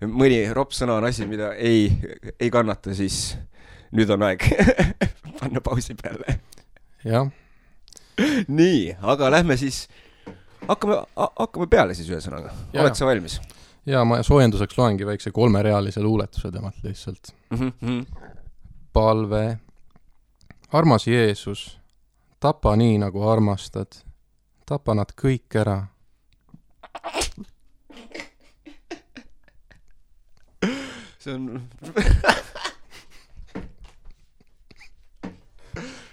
mõni ropp sõna on asi, mida ei kannata, siis nüüd on aeg panna pausi peale. Jah. Nii, aga lähme siis, hakkame peale siis ühesõnaga. Oled sa valmis? Ja ma soojenduseks loengi väikse 3-realise luuletuse temalt lihtsalt. Palve. Armas Jeesus, tapa nii, nagu armastad. Tapa nad kõik ära. See on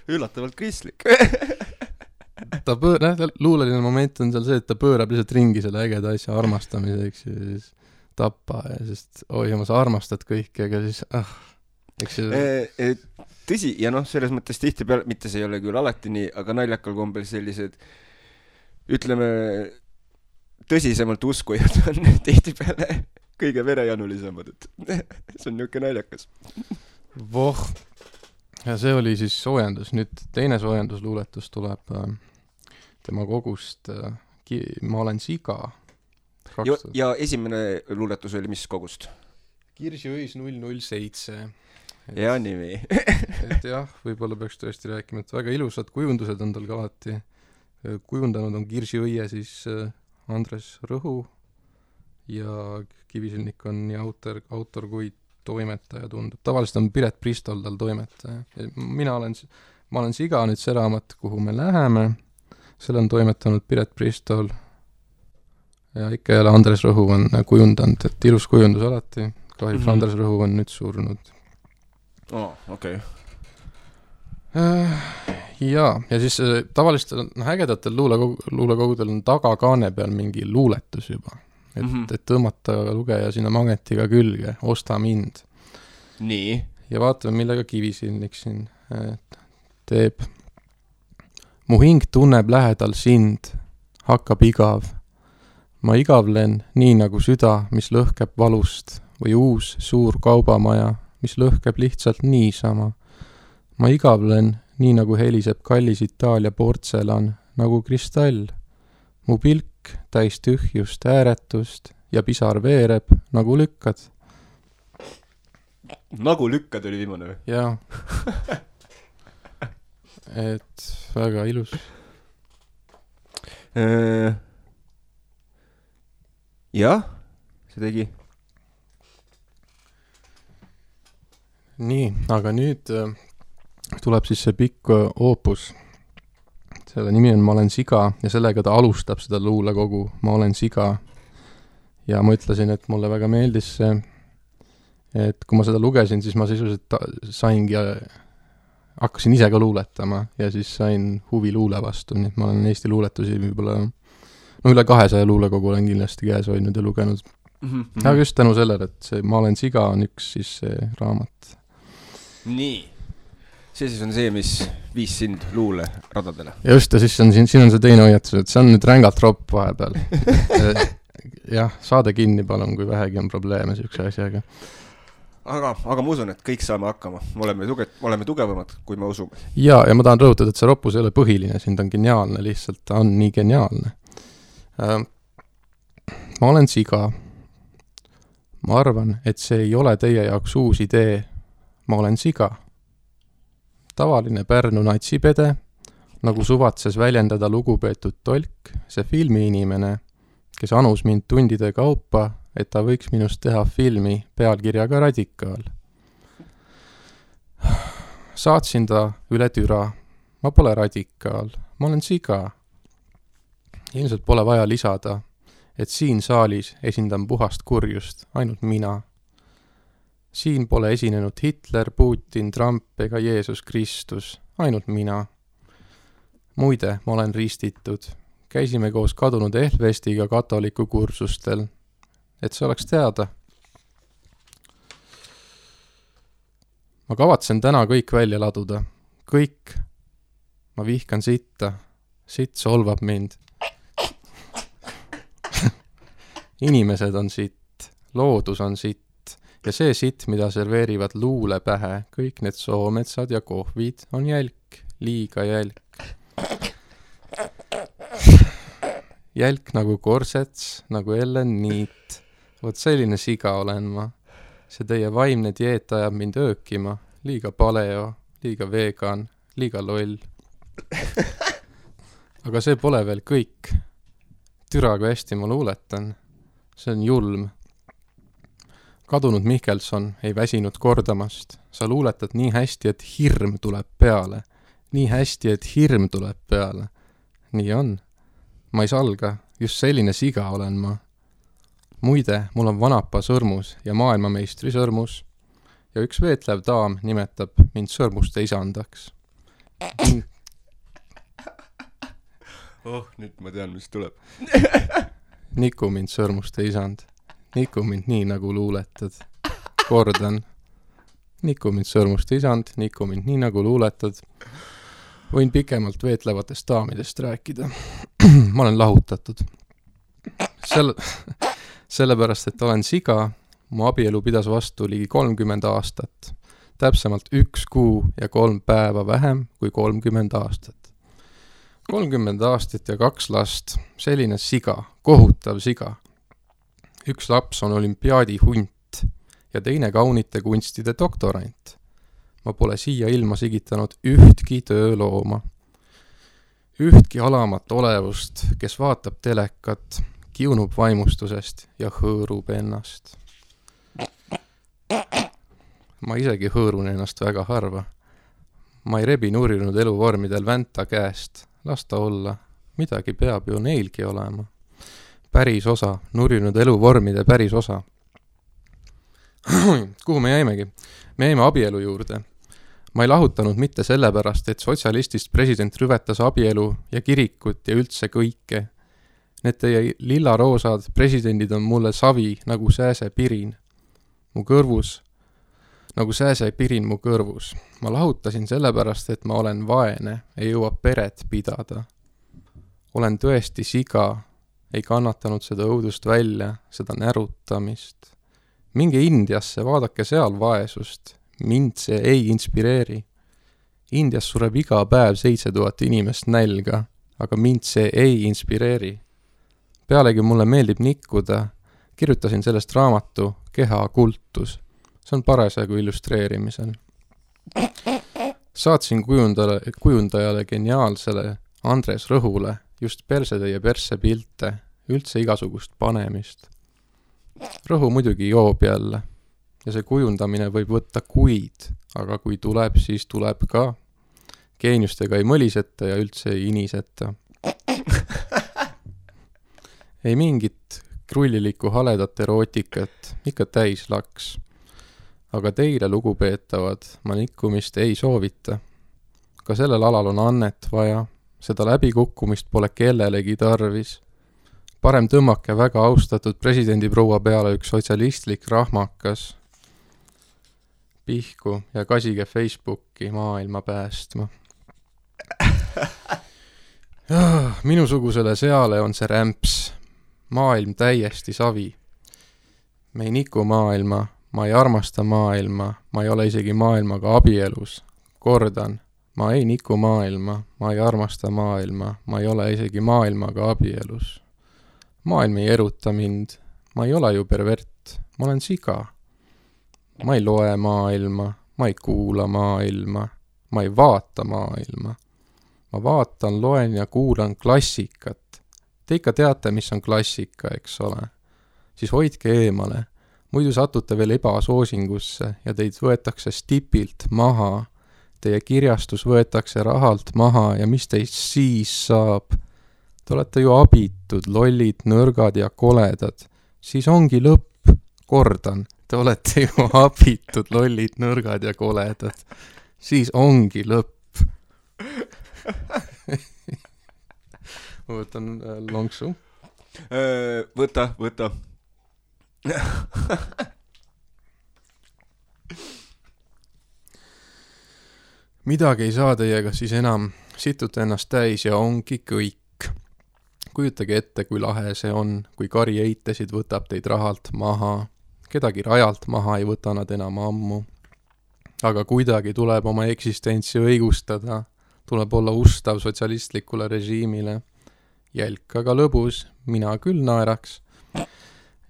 üllatavalt kristlik. Luuleline moment on seal see, et ta pöörab lihtsalt ringi selle ägeda asja armastamiseks ja siis tapa ja sest, oi, ma sa armastad kõiki, aga siis eks see tõsi, ja selles mõttes tihtipeale, mitte see ei ole küll alati nii, aga naljakal kombel sellised, ütleme, tõsisemalt uskujad on tihtipeale kõige verejanulisemad, et see on niisugune naljakas. Voh, ja see oli siis soojendus. Nüüd teine soojendusluuletus tuleb tema kogust Ma olen siga. Ja esimene luuletus oli mis kogust? Kirsiõis 007. Ja nimi. Et jah, võib-olla peaks tõesti rääkima, et väga ilusad kujundused on tal ka alati. Kujundanud on Kirsiõie siis Andres Rõhu ja Kivisilnik on nii autor kui toimetaja tundub. Tavaliselt on Piret Pristol tal toimetaja. Ma olen siga, nüüd see raamat, kuhu me läheme. Selle on toimetanud Piret Pristol ja ikka jälle Andres Rõhu on kujundanud, et ilus kujundus alati. Kahjuks Andres Rõhu on nüüd surnud. Okei. Ja siis tavaliselt ägedatel luulekogudel on tagakaane peal mingi luuletus juba. Et tõmmata lugeja sinna magnetiga külge, osta mind. Nii. Ja vaatame, millega Kivisilnik siin teeb. Mu hing tunneb lähedal sind, hakkab igav. Ma igavlen nii nagu süda, mis lõhkeb valust, või uus suur kaubamaja, mis lõhkeb lihtsalt niisama. Ma igavlen nii nagu heliseb kallis Itaalia portselan, nagu kristall. Mu pilk täis tühjust, ääretust ja pisar veereb, nagu lükkad. Nagu lükkad oli viimane või? Jaa. Et väga ilus. Jah, see tegi. Nii, aga nüüd tuleb siis see pikk oopus. Selle nimi on Ma olen siga ja sellega ta alustab seda luulekogu Ma olen siga. Ja ma ütlesin, et mulle väga meeldis see, et kui ma seda lugesin, siis ma sisuliselt saingi, hakkasin ise ka luuletama ja siis sain huvi luule vastu, nii et ma olen Eesti luuletusi võib-olla üle 200 luulekogu olen kindlasti käes hoidnud ja lugenud. Aga just tänu sellele, et see Ma olen siga on üks siis see raamat. Nii. See siis on see, mis viis sind luule radadele. Just, ja siis siin on see teine hoiatus, et see on nüüd rängalt ropp vahepeal. Jah, saade kinni palun, kui vähegi on probleeme siukse asjaga. Aga ma usun, et kõik saame hakkama. Oleme tugevamad, kui me usume. Ja ma tahan rõhutada, et see roppus ei ole põhiline, siin ta on geniaalne, lihtsalt ta on nii geniaalne. Ma olen siga. Ma arvan, et see ei ole teie jaoks uus idee. Ma olen siga. Tavaline Pärnu natsipede, nagu suvatses väljendada lugupeetud tolk, see filmiinimene, kes anus mind tundide kaupa, et ta võiks minust teha filmi pealkirjaga Radikaal. Saatsin ta üle türa. Ma pole radikaal, ma olen siga. Ilmselt pole vaja lisada, et siin saalis esindan puhast kurjust, ainult mina. Siin pole esinenud Hitler, Putin, Trump ega Jeesus Kristus, ainult mina. Muide, ma olen ristitud. Käisime koos kadunud Ehlvestiga katoliku kursustel. Et see oleks teada. Ma kavatsen täna kõik välja laduda. Kõik. Ma vihkan sitta. Sitt solvab mind. Inimesed on sitt. Loodus on sitt. Ja see sitt, mida serveerivad luule pähe, kõik need soometsad ja kohvid on jälk, liiga jälk. Jälk nagu korsets, nagu Ellen Niit. Vot selline siga olen ma. See teie vaimne dieet ajab mind öökima. Liiga paleo, liiga vegan, liiga loll. Aga see pole veel kõik. Türa, kui hästi ma luuletan. See on julm. Kadunud Mihkelson ei väsinud kordamast. Sa luuletad nii hästi, et hirm tuleb peale. Nii hästi, et hirm tuleb peale. Nii on. Ma ei salga. Just selline siga olen ma. Muide, mul on vanapa sõrmus ja maailmameistri sõrmus. Ja üks veetlev daam nimetab mind sõrmuste isandaks. Nüüd ma tean, mis tuleb. Niku mind sõrmuste isand. Niku mind nii, nagu luuletad. Kordan. Niku mind sõrmust isand, niku mind nii nagu luuletad. Võin pikemalt veetlevatest daamidest rääkida. Ma olen lahutatud. Sellepärast, et olen siga, mu abielu pidas vastu ligi 30 aastat. Täpsemalt 1 kuu ja 3 päeva vähem kui 30 aastat. 30 aastat ja 2 last, selline siga, kohutav siga. 1 laps on olümpiaadi hunt ja teine kaunite kunstide doktorant. Ma pole siia ilma sigitanud ühtki töölooma. Ühtki alamat olevust, kes vaatab telekat, kiunub vaimustusest ja hõõrub ennast. Ma isegi hõõrun ennast väga harva. Ma ei rebi nurinud eluvormidel vänta käest. Las ta olla. Midagi peab ju neilgi olema. Päris osa. Nurinud eluvormide päris osa. Kuhu me jäimegi? Me jäime abielu juurde. Ma ei lahutanud mitte sellepärast, et sotsialistist president rüvetas abielu ja kirikut ja üldse kõike. Need teie lillaroosad presidendid on mulle savi nagu sääsepirin. Mu kõrvus, nagu sääsepirin mu kõrvus. Ma lahutasin sellepärast, et ma olen vaene, ei jõua peret pidada. Olen tõesti siga, ei kannatanud seda õudust välja, seda närutamist. Minge Indiasse, vaadake seal vaesust. Mind see ei inspireeri. Indias sureb iga päev 7000 inimest nälga, aga mind see ei inspireeri. Pealegi mulle meeldib nikkuda. Kirjutasin sellest raamatu Keha kultus. See on parasjagu illustreerimisel. Saatsin kujundajale geniaalsele Andres Rõhule just persetäie perse pilte, üldse igasugust panemist. Rõhu muidugi joob jälle. Ja see kujundamine võib võtta kuid, aga kui tuleb, siis tuleb ka. Geeniustega ei mõliseta ja üldse ei iniseta. Ei mingit krullilikku haledat erootikat, ikka täis laks. Aga teile, lugupeetavad, ma nikkumist ei soovita. Ka sellel alal on annet vaja, seda läbikukkumist pole kellelegi tarvis. Parem tõmmake väga austatud presidendi proua peale üks sotsialistlik rahmakas. Pihku ja kasige Facebooki maailma päästma. Minusugusele seale on see rämps. Maailm täiesti savi. Me ei niku maailma, ma ei armasta maailma, ma ei ole isegi maailmaga abielus. Kordan, ma ei niku maailma, ma ei armasta maailma, ma ei ole isegi maailmaga abielus. Maailm ei eruta mind, ma ei ole ju pervert, ma olen siga. Ma ei loe maailma, ma ei kuula maailma, ma ei vaata maailma. Ma vaatan, loen ja kuulan klassikat. Te ikka teate, mis on klassika, eks ole. Siis hoidke eemale, muidu satute veel ebasoosingusse ja teid võetakse stipilt maha. Teie kirjastus võetakse rahalt maha ja mis teist siis saab? Te olete ju abitud, lollid, nõrgad ja koledad. Siis ongi lõpp, kordan. Te olete ju abitud, lollid, nõrgad ja koledad. Siis ongi lõpp. Ma võtan lonksu. Võta. Midagi ei saa teiega siis enam. Situte ennast täis ja ongi kõik. Kujutage ette, kui lahe see on, kui kari eitesid võtab teid rahalt maha. Kedagi rajalt maha ei võta nad enam ammu. Aga kuidagi tuleb oma eksistentsi õigustada. Tuleb olla ustav sotsialistlikule režiimile. Jälk aga lõbus, mina küll naeraks.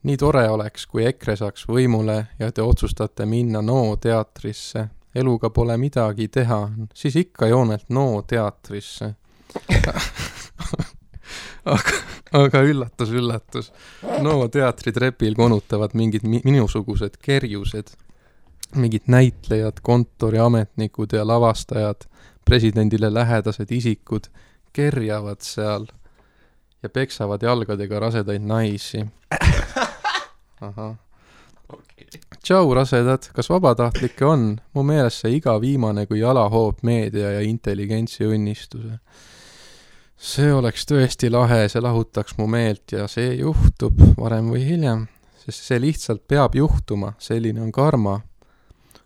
Nii tore oleks, kui EKRE saaks võimule ja te otsustate minna NO teatrisse. Eluga pole midagi teha, siis ikka joonelt NO teatrisse. Aga üllatus. NO teatri trepil konutavad mingid minusugused kerjused. Mingid näitlejad, kontoriametnikud ja lavastajad, presidendile lähedased isikud kerjavad seal ja peksavad jalgadega rasedaid naisi. Aha. Tšau, rasedad, kas vabatahtlikke on? Mu meelest see iga viimane kui jalahoob meedia ja intelligentsi õnnistuse. See oleks tõesti lahe, see lahutaks mu meelt ja see juhtub varem või hiljem, sest see lihtsalt peab juhtuma, selline on karma.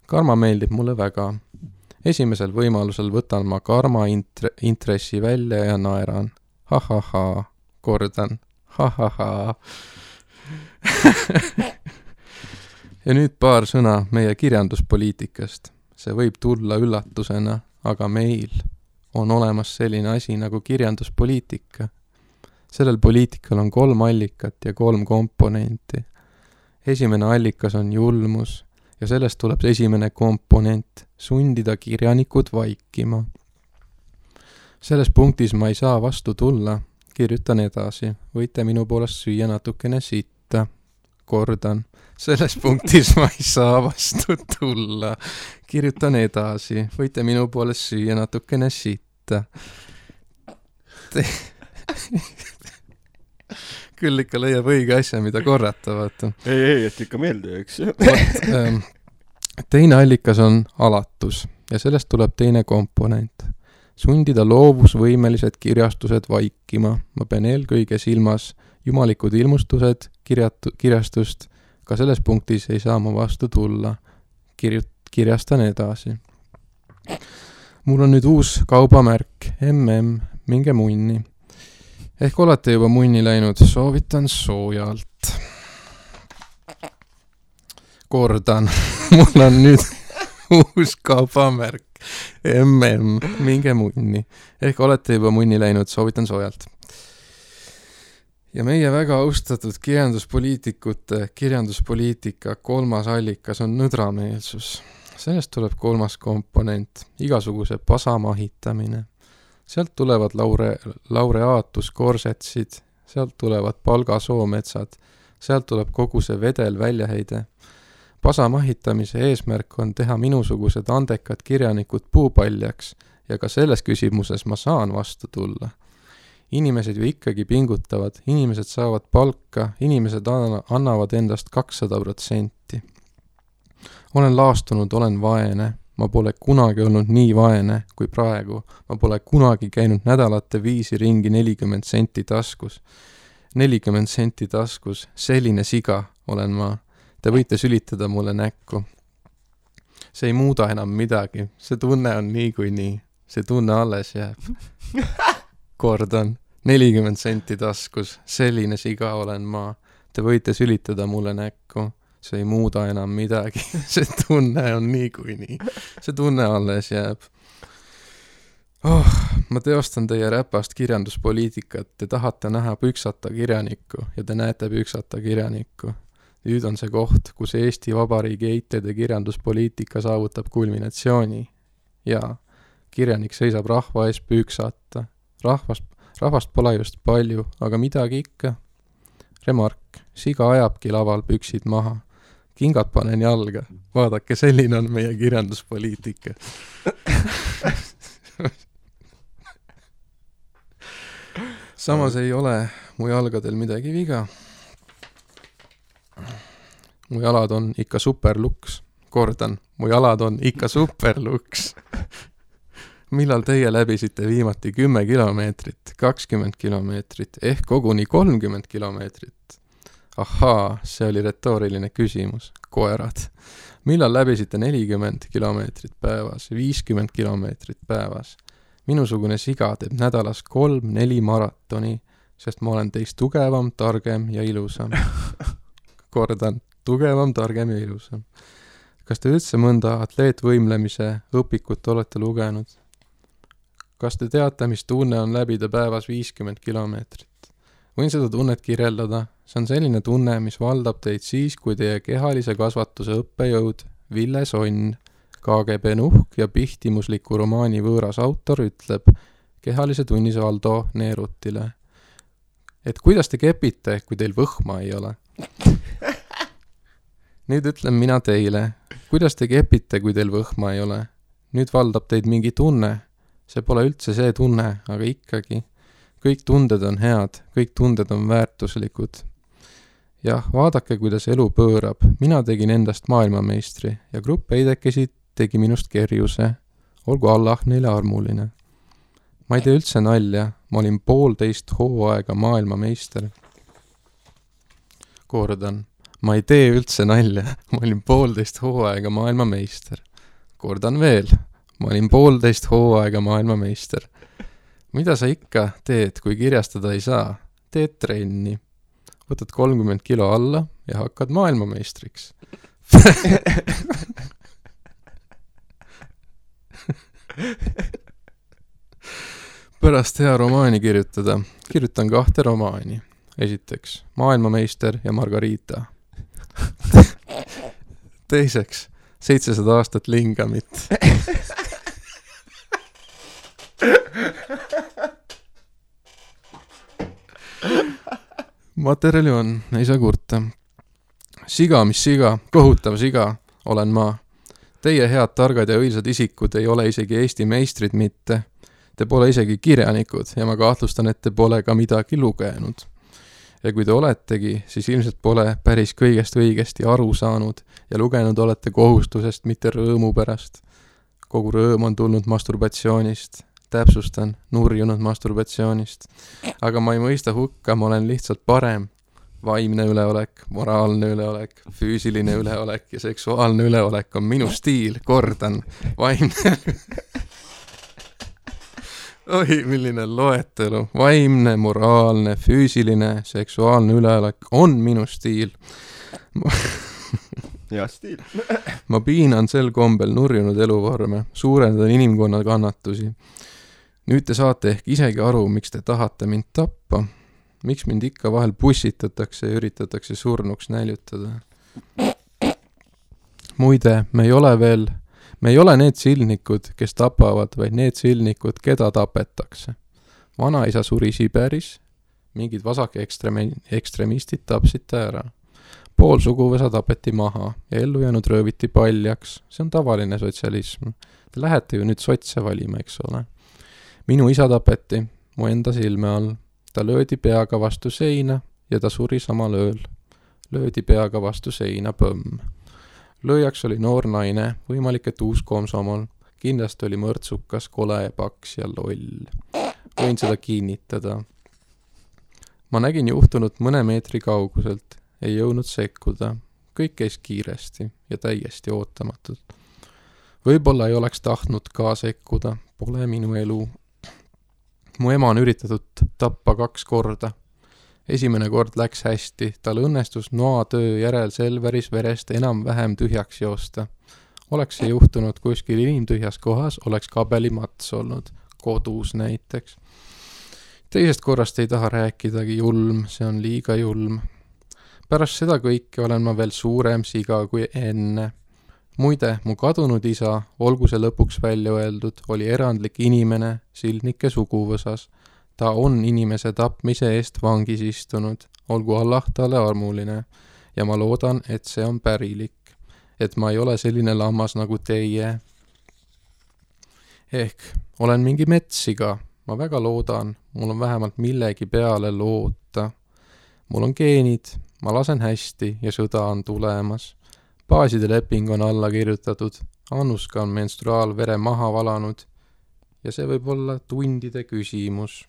Karma meeldib mulle väga. Esimesel võimalusel võtan ma karma intressi välja ja naeran. Ha-ha-ha, kordan. Ha-ha-ha. Ja nüüd paar sõna meie kirjanduspoliitikast. See võib tulla üllatusena, aga meil on olemas selline asi nagu kirjanduspoliitika. Sellel poliitikal on 3 allikat ja 3 komponenti. Esimene allikas on julmus ja sellest tuleb esimene komponent, sundida kirjanikud vaikima. Selles punktis ma ei saa vastu tulla, kirjutan edasi, võite minu poolest süüa natukene sitta, kordan. Selles punktis ma ei saa vastu tulla, kirjutan edasi, võite minu poolest süüa natukene sitta. Küll ikka leiab õige asja, mida korrata, vaata. Ei, et ikka meelde, eks. Teine allikas on alatus ja sellest tuleb teine komponent. Sundida loovusvõimelised kirjastused vaikima. Ma pean eelkõige silmas jumalikud ilmustused kirjastust. Ka selles punktis ei saa ma vastu tulla. Kirjastan edasi. Mul on nüüd uus kaubamärk. Minge munni. Ehk olete juba munni läinud. Soovitan soojalt. Kordan. Mul on nüüd uus kaubamärk. Minge munni. Ehk olete juba munni läinud. Soovitan soojalt. Ja meie väga austatud kirjanduspoliitika 3. allikas on nõdrameelsus. Sellest tuleb 3. komponent, igasuguse pasamahitamine. Sealt tulevad laureaatuskorsetsid, sealt tulevad palgasoometsad, sealt tuleb kogu see vedel väljaheide. Pasamahitamise eesmärk on teha minusugused andekad kirjanikud puupaljaks ja ka selles küsimuses ma saan vastu tulla. Inimesed ju ikkagi pingutavad, inimesed saavad palka, inimesed annavad endast 200%. Olen laastunud, olen vaene. Ma pole kunagi olnud nii vaene kui praegu. Ma pole kunagi käinud nädalate viisi ringi 40 senti taskus. 40 senti taskus, selline siga olen ma. Te võite sülitada mulle näkku. See ei muuda enam midagi. See tunne on nii kui nii. See tunne alles jääb. Kordan, 40 senti taskus, selline siga olen ma. Te võite sülitada mulle näkku. See ei muuda enam midagi. See tunne on nii kui nii. See tunne alles jääb. Ma teostan teie räpast kirjanduspoliitikat. Te tahate näha püksata kirjanikku ja te näete püksata kirjanikku. Nüüd on see koht, kus Eesti Vabariigi eitede kirjanduspoliitika saavutab kulminatsiooni. Ja kirjanik seisab rahva ees püksata. Rahvast pole just palju, aga midagi ikka. Remark, siga ajabki laval püksid maha. Kingad panen jalga. Vaadake, selline on meie kirjanduspoliitika. Samas ei ole mu jalgadel midagi viga. Mu jalad on ikka superluks. Kordan, mu jalad on ikka superluks. Millal teie läbisite viimati 10 kilomeetrit, 20 kilomeetrit, ehk koguni 30 kilomeetrit? Ahaa, see oli retooriline küsimus. Koerad. Millal läbisite 40 kilomeetrit päevas, 50 kilomeetrit päevas? Minusugune siga teeb nädalas 3-4 maratoni, sest ma olen teist tugevam, targem ja ilusam. Kordan, tugevam, targem ja ilusam. Kas te üldse mõnda atleetvõimlemise õpikut olete lugenud? Kas te teate, mis tunne on läbida päevas 50 kilomeetrit? Võin seda tunnet kirjeldada. See on selline tunne, mis valdab teid siis, kui teie kehalise kasvatuse õppejõud Ville Sonn, KGB nuhk ja pihtimusliku romaani võõras autor ütleb kehalise tunnis Valdo Neerutile, et kuidas te kepite, kui teil võhma ei ole? Nüüd ütlen mina teile, kuidas te kepite, kui teil võhma ei ole? Nüüd valdab teid mingi tunne. See pole üldse see tunne, aga ikkagi. Kõik tunded on head, kõik tunded on väärtuslikud. Jah, vaadake, kuidas elu pöörab. Mina tegin endast maailmameistri ja grupp eidekesi tegi minust kerjuse. Olgu Allah neile armuline. Ma ei tee üldse nalja, ma olin 1,5 hooaega maailmameister. Kordan, Ma ei tee üldse nalja, ma olin 1,5 hooaega maailmameister. Kordan veel, ma olin 1,5 hooaega maailmameister. Mida sa ikka teed, kui kirjastada ei saa? Teed trenni. Võtad 30 kilo alla ja hakkad maailmameistriks. Pärast hea romaani kirjutada. Kirjutan 2 romaani. Esiteks, Maailmameister ja Margarita. Teiseks, 700 aastat lingamit. Materjali on, ei saa kurta. Siga, mis siga, kohutav siga, olen ma. Teie head, targad ja õilsad isikud ei ole isegi Eesti meistrid mitte. Te pole isegi kirjanikud ja ma kahtlustan, et te pole ka midagi lugenud. Ja kui te oletegi, siis ilmselt pole päris kõigest õigesti aru saanud ja lugenud olete kohustusest, mitte rõõmu pärast. Kogu rõõm on tulnud masturbatsioonist. Täpsustan, nurjunud masturbatsioonist. Aga ma ei mõista hukka, ma olen lihtsalt parem. Vaimne üleolek, moraalne üleolek, füüsiline üleolek ja seksuaalne üleolek on minu stiil, kordan. Vaimne... Oi, milline loetelu. Vaimne, moraalne, füüsiline, seksuaalne üleolek on minu stiil. Ja stiil. Ma piinan sel kombel nurjunud eluvorme, suurendan inimkonna kannatusi. Nüüd te saate ehk isegi aru, miks te tahate mind tappa. Miks mind ikka vahel bussitatakse ja üritatakse surnuks näljutada. Muide, me ei ole need silnikud, kes tapavad, vaid need silnikud, keda tapetakse. Vanaisa suri Siberis, mingid vasake ekstremistid tapsid ta ära. Pool suguvõsa tapeti maha ja ellu jäänud rööviti paljaks. See on tavaline sotsialism. Te lähete ju nüüd sotse valima, eks ole. Minu isa tapeti, mu enda silme all. Ta löödi peaga vastu seina ja ta suri samal ööl. Löödi peaga vastu seina põmm. Lööjaks oli noor naine, võimalik, et uus komsomol. Kindlasti oli mõrtsukas, kole, paks ja loll. Võin seda kinnitada. Ma nägin juhtunut mõne meetri kauguselt. Ei jõudnud sekkuda. Kõik käis kiiresti ja täiesti ootamatult. Võib-olla ei oleks tahtnud ka sekkuda. Pole minu elu. Mu ema on üritatud tappa 2 korda. Esimene kord läks hästi. Tal õnnestus noatöö järel Selveris verest enam-vähem tühjaks joosta. Oleks see juhtunud kuskil inimtühjas kohas, oleks kabelimats olnud. Kodus näiteks. Teisest korrast ei taha rääkidagi, julm. See on liiga julm. Pärast seda kõike olen ma veel suurem siga kui enne. Muide, mu kadunud isa, olgu see lõpuks välja öeldud, oli erandlik inimene sildnike suguvõsas. Ta on inimese tapmise eest vangis istunud, olgu Allah talle armuline. Ja ma loodan, et see on pärilik. Et ma ei ole selline lammas nagu teie. Ehk olen mingi metssiga. Ma väga loodan, mul on vähemalt millegi peale loota. Mul on geenid. Ma lasen hästi ja sõda on tulemas. Baaside leping on alla kirjutatud. Annuska on menstruaalvere maha valanud. Ja see võib olla tundide küsimus.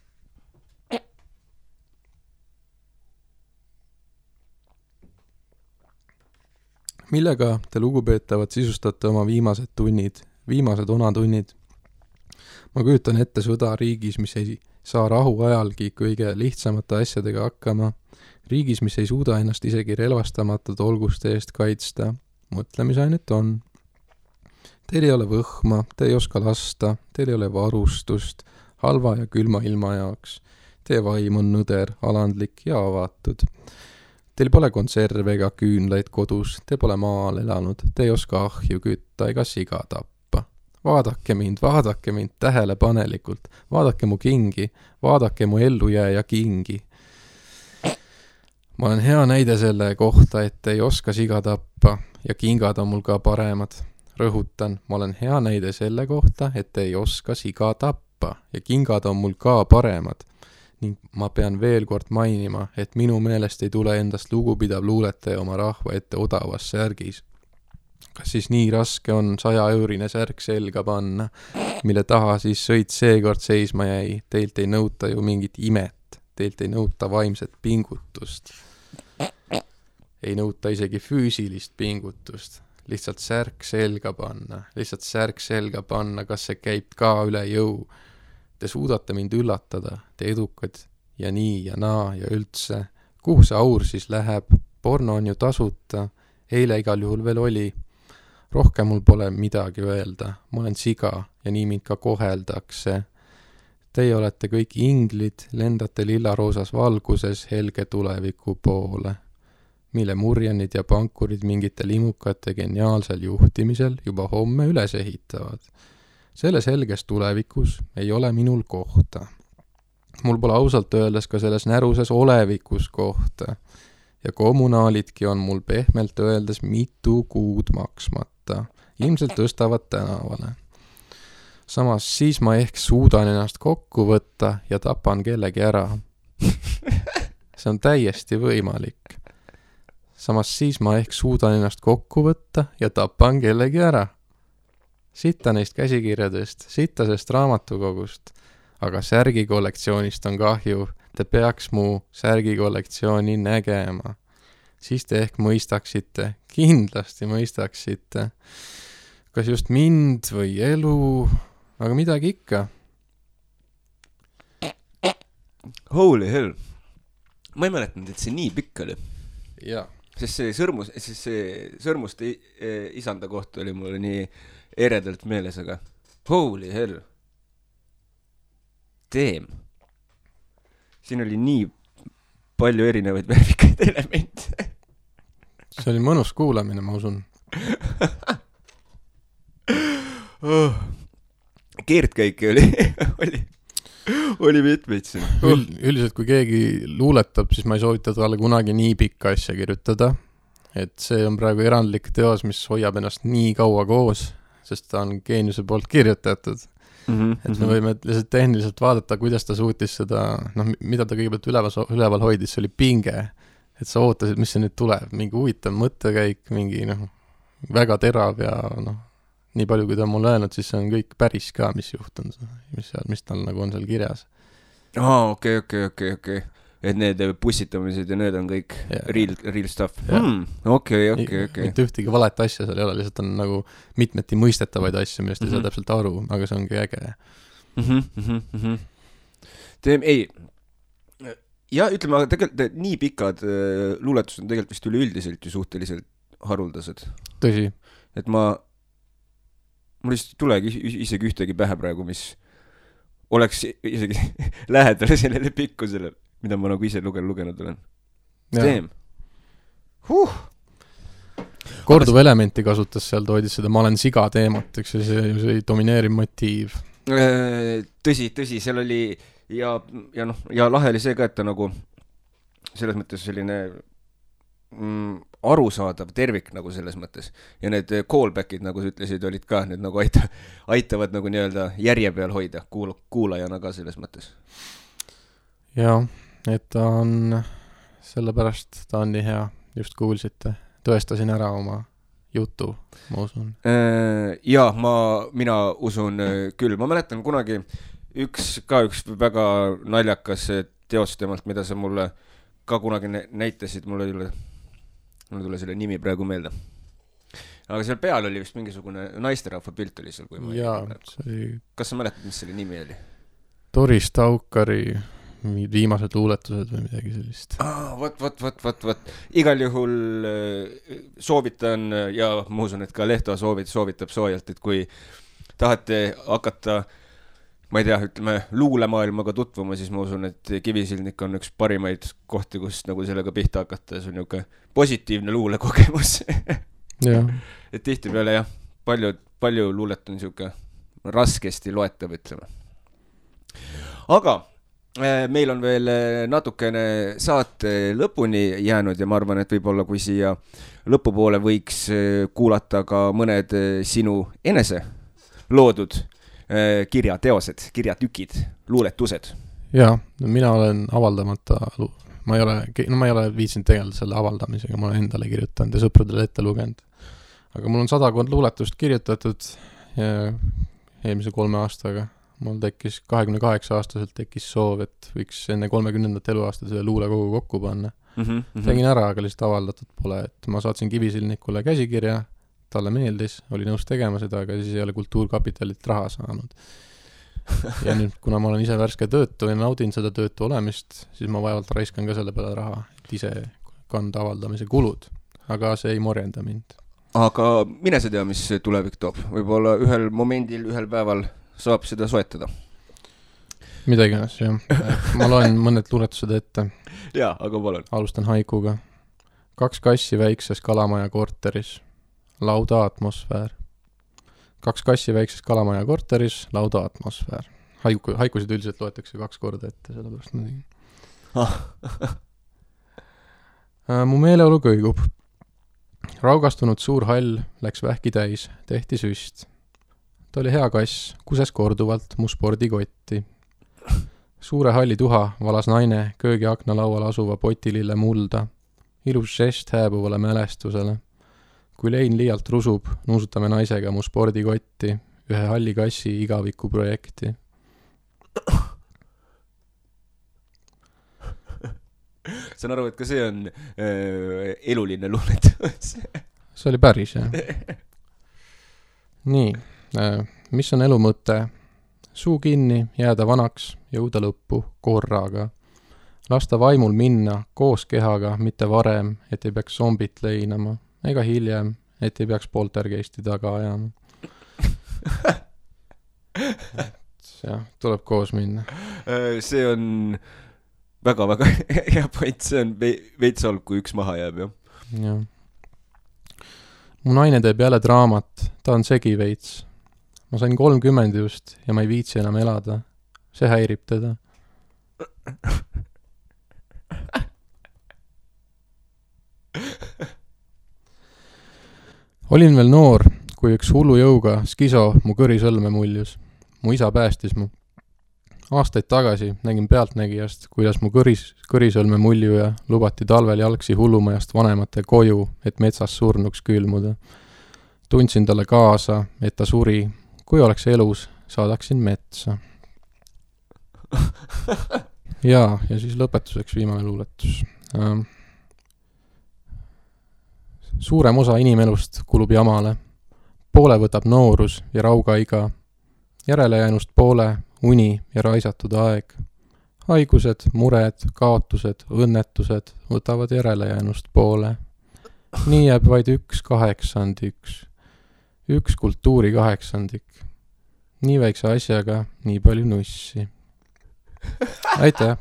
Millega te lugupeetavad sisustate oma viimased tunnid, viimased onatunnid? Ma kujutan ette sõda riigis, mis ei saa rahu ajalgi kõige lihtsamate asjadega hakkama. Riigis, mis ei suuda ennast isegi relvastamatud olguste eest kaitsta. Mõtlemisainet on. Teil ei ole võhma, te ei oska lasta, teil ei ole varustust, halva ja külma ilma jaoks. Teie vaim on nõder, alandlik ja avatud. Teil pole konserve ega küünlaid kodus, te pole maal elanud, te ei oska ahju kütta ega siga tappa. Vaadake mind tähelepanelikult, vaadake mu kingi, vaadake mu ellujääja kingi. Ma olen hea näide selle kohta, et ei oska siga tappa ja kingad on mul ka paremad. Rõhutan, ma olen hea näide selle kohta, et ei oska siga tappa ja kingad on mul ka paremad. Ning ma pean veel kord mainima, et minu meelest ei tule endast lugupidav luuletaja oma rahva ette odavas särgis. Kas siis nii raske on 100-eurine särk selga panna, mille taha siis sõit seekord seisma jäi? Teilt ei nõuta ju mingit imet, teilt ei nõuta vaimset pingutust. ei nõuta isegi füüsilist pingutust. Lihtsalt särk selga panna, kas see käib ka üle jõu. Te suudate mind üllatada, te edukad ja nii ja naa ja üldse. Kuhu see aur siis läheb? Porno on ju tasuta, eile igal juhul veel oli. Rohkem mul pole midagi öelda, ma olen siga ja nii mind ka koheldakse. Teie olete kõik inglid, lendate lillaroosas valguses helge tuleviku poole, mille murjanid ja pankurid mingite limukate geniaalsel juhtimisel juba homme üles ehitavad. Selles helges tulevikus ei ole minul kohta. Mul pole ausalt öeldes ka selles näruses olevikus kohta ja kommunaalidki on mul pehmelt öeldes mitu kuud maksmata. Ilmselt tõstavad tänavale. Samas siis ma ehk suudan ennast kokku võtta ja tapan kellegi ära. See on täiesti võimalik. Samas siis ma ehk suudan ennast kokku võtta ja tapan kellegi ära. Sitta neist käsikirjadest, sittasest raamatukogust, aga särgikollektsioonist on kahju. Te peaks mu särgikollektsiooni nägema. Siis te ehk mõistaksite, kindlasti mõistaksite, kas just mind või elu, aga midagi ikka. Holy hell. Ma ei mäletanud, et see nii pikk oli. Jaa. Sest see sõrmuste isanda kohta oli mulle nii eredalt meeles, aga holy hell. Damn. Siin oli nii palju erinevaid värvikaid elemente. See oli mõnus kuulamine, ma usun. Keerdkäike oli mitmeid siin. Üldiselt, kui keegi luuletab, siis ma ei soovita talle kunagi nii pikka asja kirjutada. Et see on praegu erandlik teos, mis hoiab ennast nii kaua koos, sest ta on geeniuse poolt kirjutatud. Et me võime lihtsalt tehniliselt vaadata, kuidas ta suutis seda, mida ta kõigepealt üleval hoidis, see oli pinge, et sa ootasid, mis see nüüd tuleb, mingi huvitav mõttekäik, mingi väga terav ja nii palju, kui ta on mulle öelnud, siis see on kõik päris ka, mis juhtun, mis tal nagu on seal kirjas. Okei. Et need pussitamised ja need on kõik real stuff. Okei. Mitte ühtegi valet asja seal ei ole, lihtsalt on nagu mitmeti mõistetavaid asju, millest ei saa täpselt aru, aga see ongi äge. Ei. Ja ütleme, aga tegelikult nii pikad luuletused on tegelikult vist üleüldiselt ju suhteliselt haruldased. Tõsi. Et mul lihtsalt ei tulegi isegi ühtegi pähe praegu, mis oleks isegi lähedale sellele pikkusele, mida ma nagu ise lugenud olen. Steam. Korduv elementi kasutas seal, toodis seda ma olen siga teemat, eks see domineeriv motiiv. Tõsi, seal oli ja lahe oli see ka, et ta nagu selles mõttes selline arusaadav tervik nagu selles mõttes. Ja need callbackid, nagu sa ütlesid, olid ka, need nagu aitavad nagu nii-öelda järje peal hoida kuulajana ka selles mõttes. Jaa, et ta on, sellepärast ta on nii hea, just kuulsite, tõestasin ära oma jutu, ma usun. Jaa, mina usun küll. Ma mäletan kunagi üks väga naljakas teos temalt, mida sa mulle ka kunagi näitasid, mul tule selle nimi praegu meelde. Aga seal peal oli vist mingisugune naisterahva pilt oli seal, kui ma Kas sa mäletad, mis selle nimi oli? Doris Taukari viimased luuletused või midagi sellist. Vot. Igal juhul soovitan ja ma usun, et ka Lehto soovitab soojalt, et kui tahate hakata, ma ei tea, ütleme, luulemaailmaga tutvuma, siis ma usun, et Kivisildnik on üks parimaid kohti, kus nagu sellega pihta hakata. See on niuke positiivne luulekogemus. Et tihti peale jah, palju luulet on siuke raskesti loetav, ütleme. Aga meil on veel natukene saate lõpuni jäänud ja ma arvan, et võib-olla kui siia lõpupoole võiks kuulata ka mõned sinu enese loodud kirjateosed, kirjatükid, luuletused. Jaa, mina olen avaldamata, ma ei ole viitsinud tegeleda selle avaldamisega, ma olen endale kirjutanud ja sõpradele ette lugenud. Aga mul on 100 luuletust kirjutatud eelmise 3 aastaga. Mul tekkis 28-aastaselt tekkis soov, et võiks enne 30. eluaasta selle luulekogu kokku panna. Tegin ära, aga lihtsalt avaldatud pole, et ma saatsin Kivisilnikule käsikirja, talle meeldis, oli nõus tegema seda, aga siis ei ole Kultuurkapitalilt raha saanud. Ja nüüd, kuna ma olen ise värske töötu ja naudin seda töötu olemist, siis ma vaevalt raiskan ka selle peale raha, et ise kanda avaldamise kulud. Aga see ei morjenda mind. Aga mine sa tea, mis tulevik toob. Võib-olla ühel momendil, ühel päeval saab seda soetada. Midagi ennast, jah. Ma loen mõned luuletused ette. Jaa, aga palun. Alustan haikuga. 2 kassi väikses Kalamaja korteris. Lauda atmosfäär. 2 kassi väikses Kalamaja korteris. Lauda atmosfäär. Haikusid üldiselt loetakse 2 korda ette, sellepärast ma tegin. Mu meeleolu kõigub. Raugastunud suur hall läks vähki täis, tehti süst. Ta oli hea kass, kuses korduvalt mu spordikotti. Suure halli tuha valas naine köögi akna laual asuva potilille mulda. Ilus žest hääbuvale mälestusele. Kui lein liialt rusub, nuusutame naisega mu spordikotti, ühe halli kassi igaviku projekti. Saan aru, et ka see on eluline luuletus. See oli päris, jah. Nii, mis on elu mõte? Suu kinni, jääda vanaks, jõuda lõppu korraga. Lasta vaimul minna koos kehaga, mitte varem, et ei peaks zombit leinama, ega hiljem, et ei peaks poltergeisti taga ajama. jah, tuleb koos minna. See on väga-väga hea point, see on veits olg, kui üks maha jääb, jah. Jah. Mu naine teeb jälle draamat, ta on segi veits. Ma sain 30 just ja ma ei viitsi enam elada. See häirib teda. Olin veel noor, kui üks hullu jõuga skiso mu kõrisõlme muljus. Mu isa päästis mu. Aastaid tagasi nägin pealtnägijast, kuidas mu kõrisõlme muljuja lubati talvel jalgsi hullumajast vanemate koju, et metsas surnuks külmuda. Tundsin talle kaasa, et ta suri. Kui oleks elus, saadaksin metsa. ja siis lõpetuseks viimane luuletus. Suurem osa inimelust kulub jamale. Poole võtab noorus ja raugaiga. Järelejäänust poole uni ja raisatud aeg. Haigused, mured, kaotused, õnnetused võtavad järelejäänust poole. Nii jääb vaid 1/8. 1 kultuuri 8. Nii väikse asjaga nii palju nussi. Aitäh!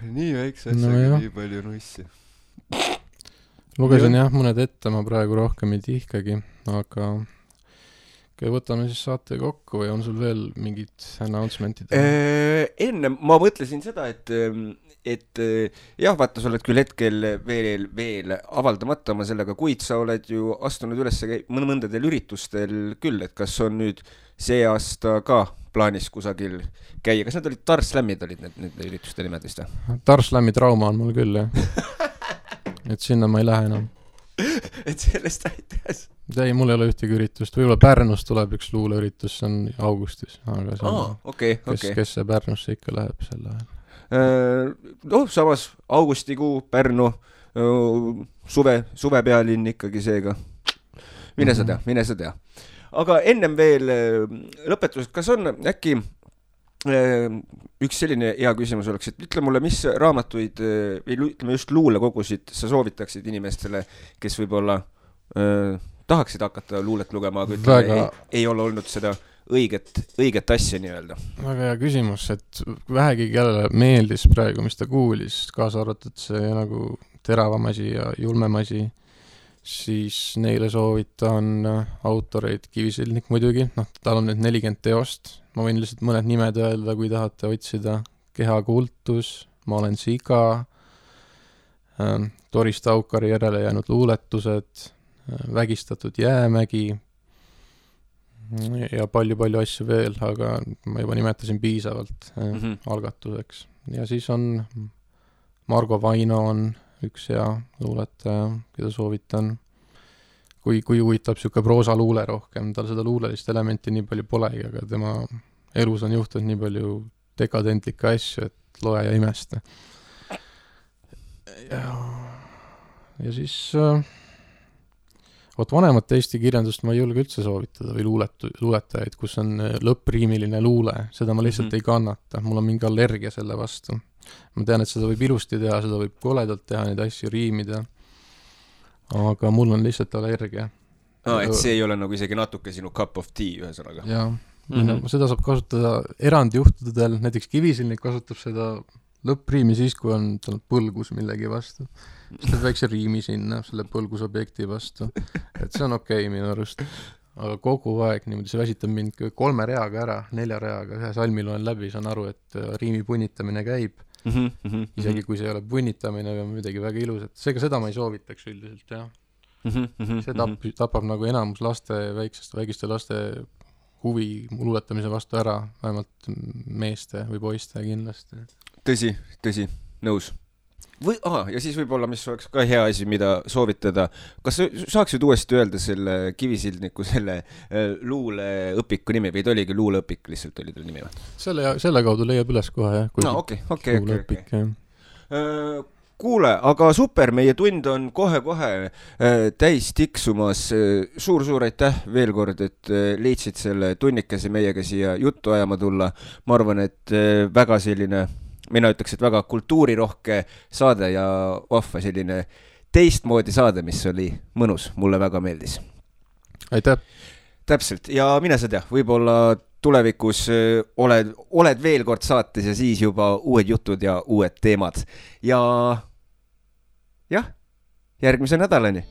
nii väikse asjaga nii palju nussi. Lugesin jah mõned ette, ma praegu rohkem ei tihkagi, aga võtame siis saate kokku või on sul veel mingid announcementid? Enne ma mõtlesin seda, et jah, vaata, sa oled küll hetkel veel avaldamata oma sellega, kuid sa oled ju astunud üles mõndadel üritustel küll, et kas on nüüd see aasta ka plaanis kusagil käia? Kas need olid Tarslämmid olid need ürituste nimed vist? Tarslämmi trauma on mul küll, jah. Et sinna ma ei lähe enam. Et sellest aitäs? Ei, mul ei ole ühtegi üritust. Võib-olla Pärnus tuleb üks luuleüritus, see on augustis. Aga see on, kes see Pärnusse ikka läheb selle ajal? Samas augustikuu, Pärnu, suvepealinn ikkagi seega. Mine sa tea. Aga ennem veel lõpetused, kas on äkki üks selline hea küsimus oleks, et ütle mulle, mis raamatuid või ütleme just luulekogusid sa soovitaksid inimestele, kes võib-olla tahaksid hakata luulet lugema, aga ütleme, ei ole olnud seda õiget asja nii-öelda. Väga hea küsimus, et vähegi kellele meeldis praegu, mis ta kuulis, kaasa arvatud see nagu teravam asi ja julmem asi, siis neile soovitan autoreid Kivisilnik muidugi, tal on nüüd 40 teost, ma võin lihtsalt mõned nimed öelda, kui tahate otsida. Kehakultus, Ma olen siga, Doris Taukari järele jäänud luuletused, Vägistatud jäämägi ja palju asju veel, aga ma juba nimetasin piisavalt algatuseks. Ja siis on Margo Vaino on üks hea luuletaja, keda soovitan. kui huvitab siuke proosaluule rohkem, tal seda luulelist elementi nii palju polegi, aga tema elus on juhtunud nii palju dekadentlikke asju, et loe ja imesta. Ja siis vanemat Eesti kirjandust ma ei julge üldse soovitada või luuletajaid, kus on lõppriimiline luule, seda ma lihtsalt ei kannata, mul on mingi allergia selle vastu. Ma tean, et seda võib ilusti teha, seda võib koledalt teha, neid asju riimida, aga mul on lihtsalt allergia. Et see ei ole nagu isegi natuke sinu cup of tea ühesõnaga. Jaa, seda saab kasutada erandjuhtudel, näiteks Kivisilnik kasutab seda lõppriimi siis, kui on tal põlgus millegi vastu. Siis teeb väikse riimi sinna selle põlgusobjekti vastu. Et see on okei minu arust. Aga kogu aeg niimoodi see väsitab mind 3 reaga ära, 4 reaga, ühe salmi loen läbi, saan aru, et riimi punnitamine käib. Isegi kui see ei ole punnitamine või midagi väga ilus, et seega seda ma ei soovitaks üldiselt, jah. See tapab nagu enamus väikeste laste huvi luuletamise vastu ära, vähemalt meeste või poiste kindlasti. Tõsi, nõus. Ja siis võib-olla, mis oleks ka hea asi, mida soovitada. Kas saaksid uuesti öelda selle Kivisildniku selle luuleõpiku nimi või oligi luuleõpik lihtsalt oli tal nimi? Selle kaudu leiab üles kohe, jah. Okei. Kuule, aga super, meie tund on kohe-kohe täis tiksumas. Suur aitäh veel kord, et leidsid selle tunnikese meiega siia juttu ajama tulla. Ma arvan, et väga selline, mina ütleks, et väga kultuurirohke saade ja vahva selline teistmoodi saade, mis oli mõnus. Mulle väga meeldis. Aitäh! Täpselt, ja mine sa tea, võib-olla tulevikus oled veel kord saates ja siis juba uued jutud ja uued teemad. Ja jah, järgmise nädalani.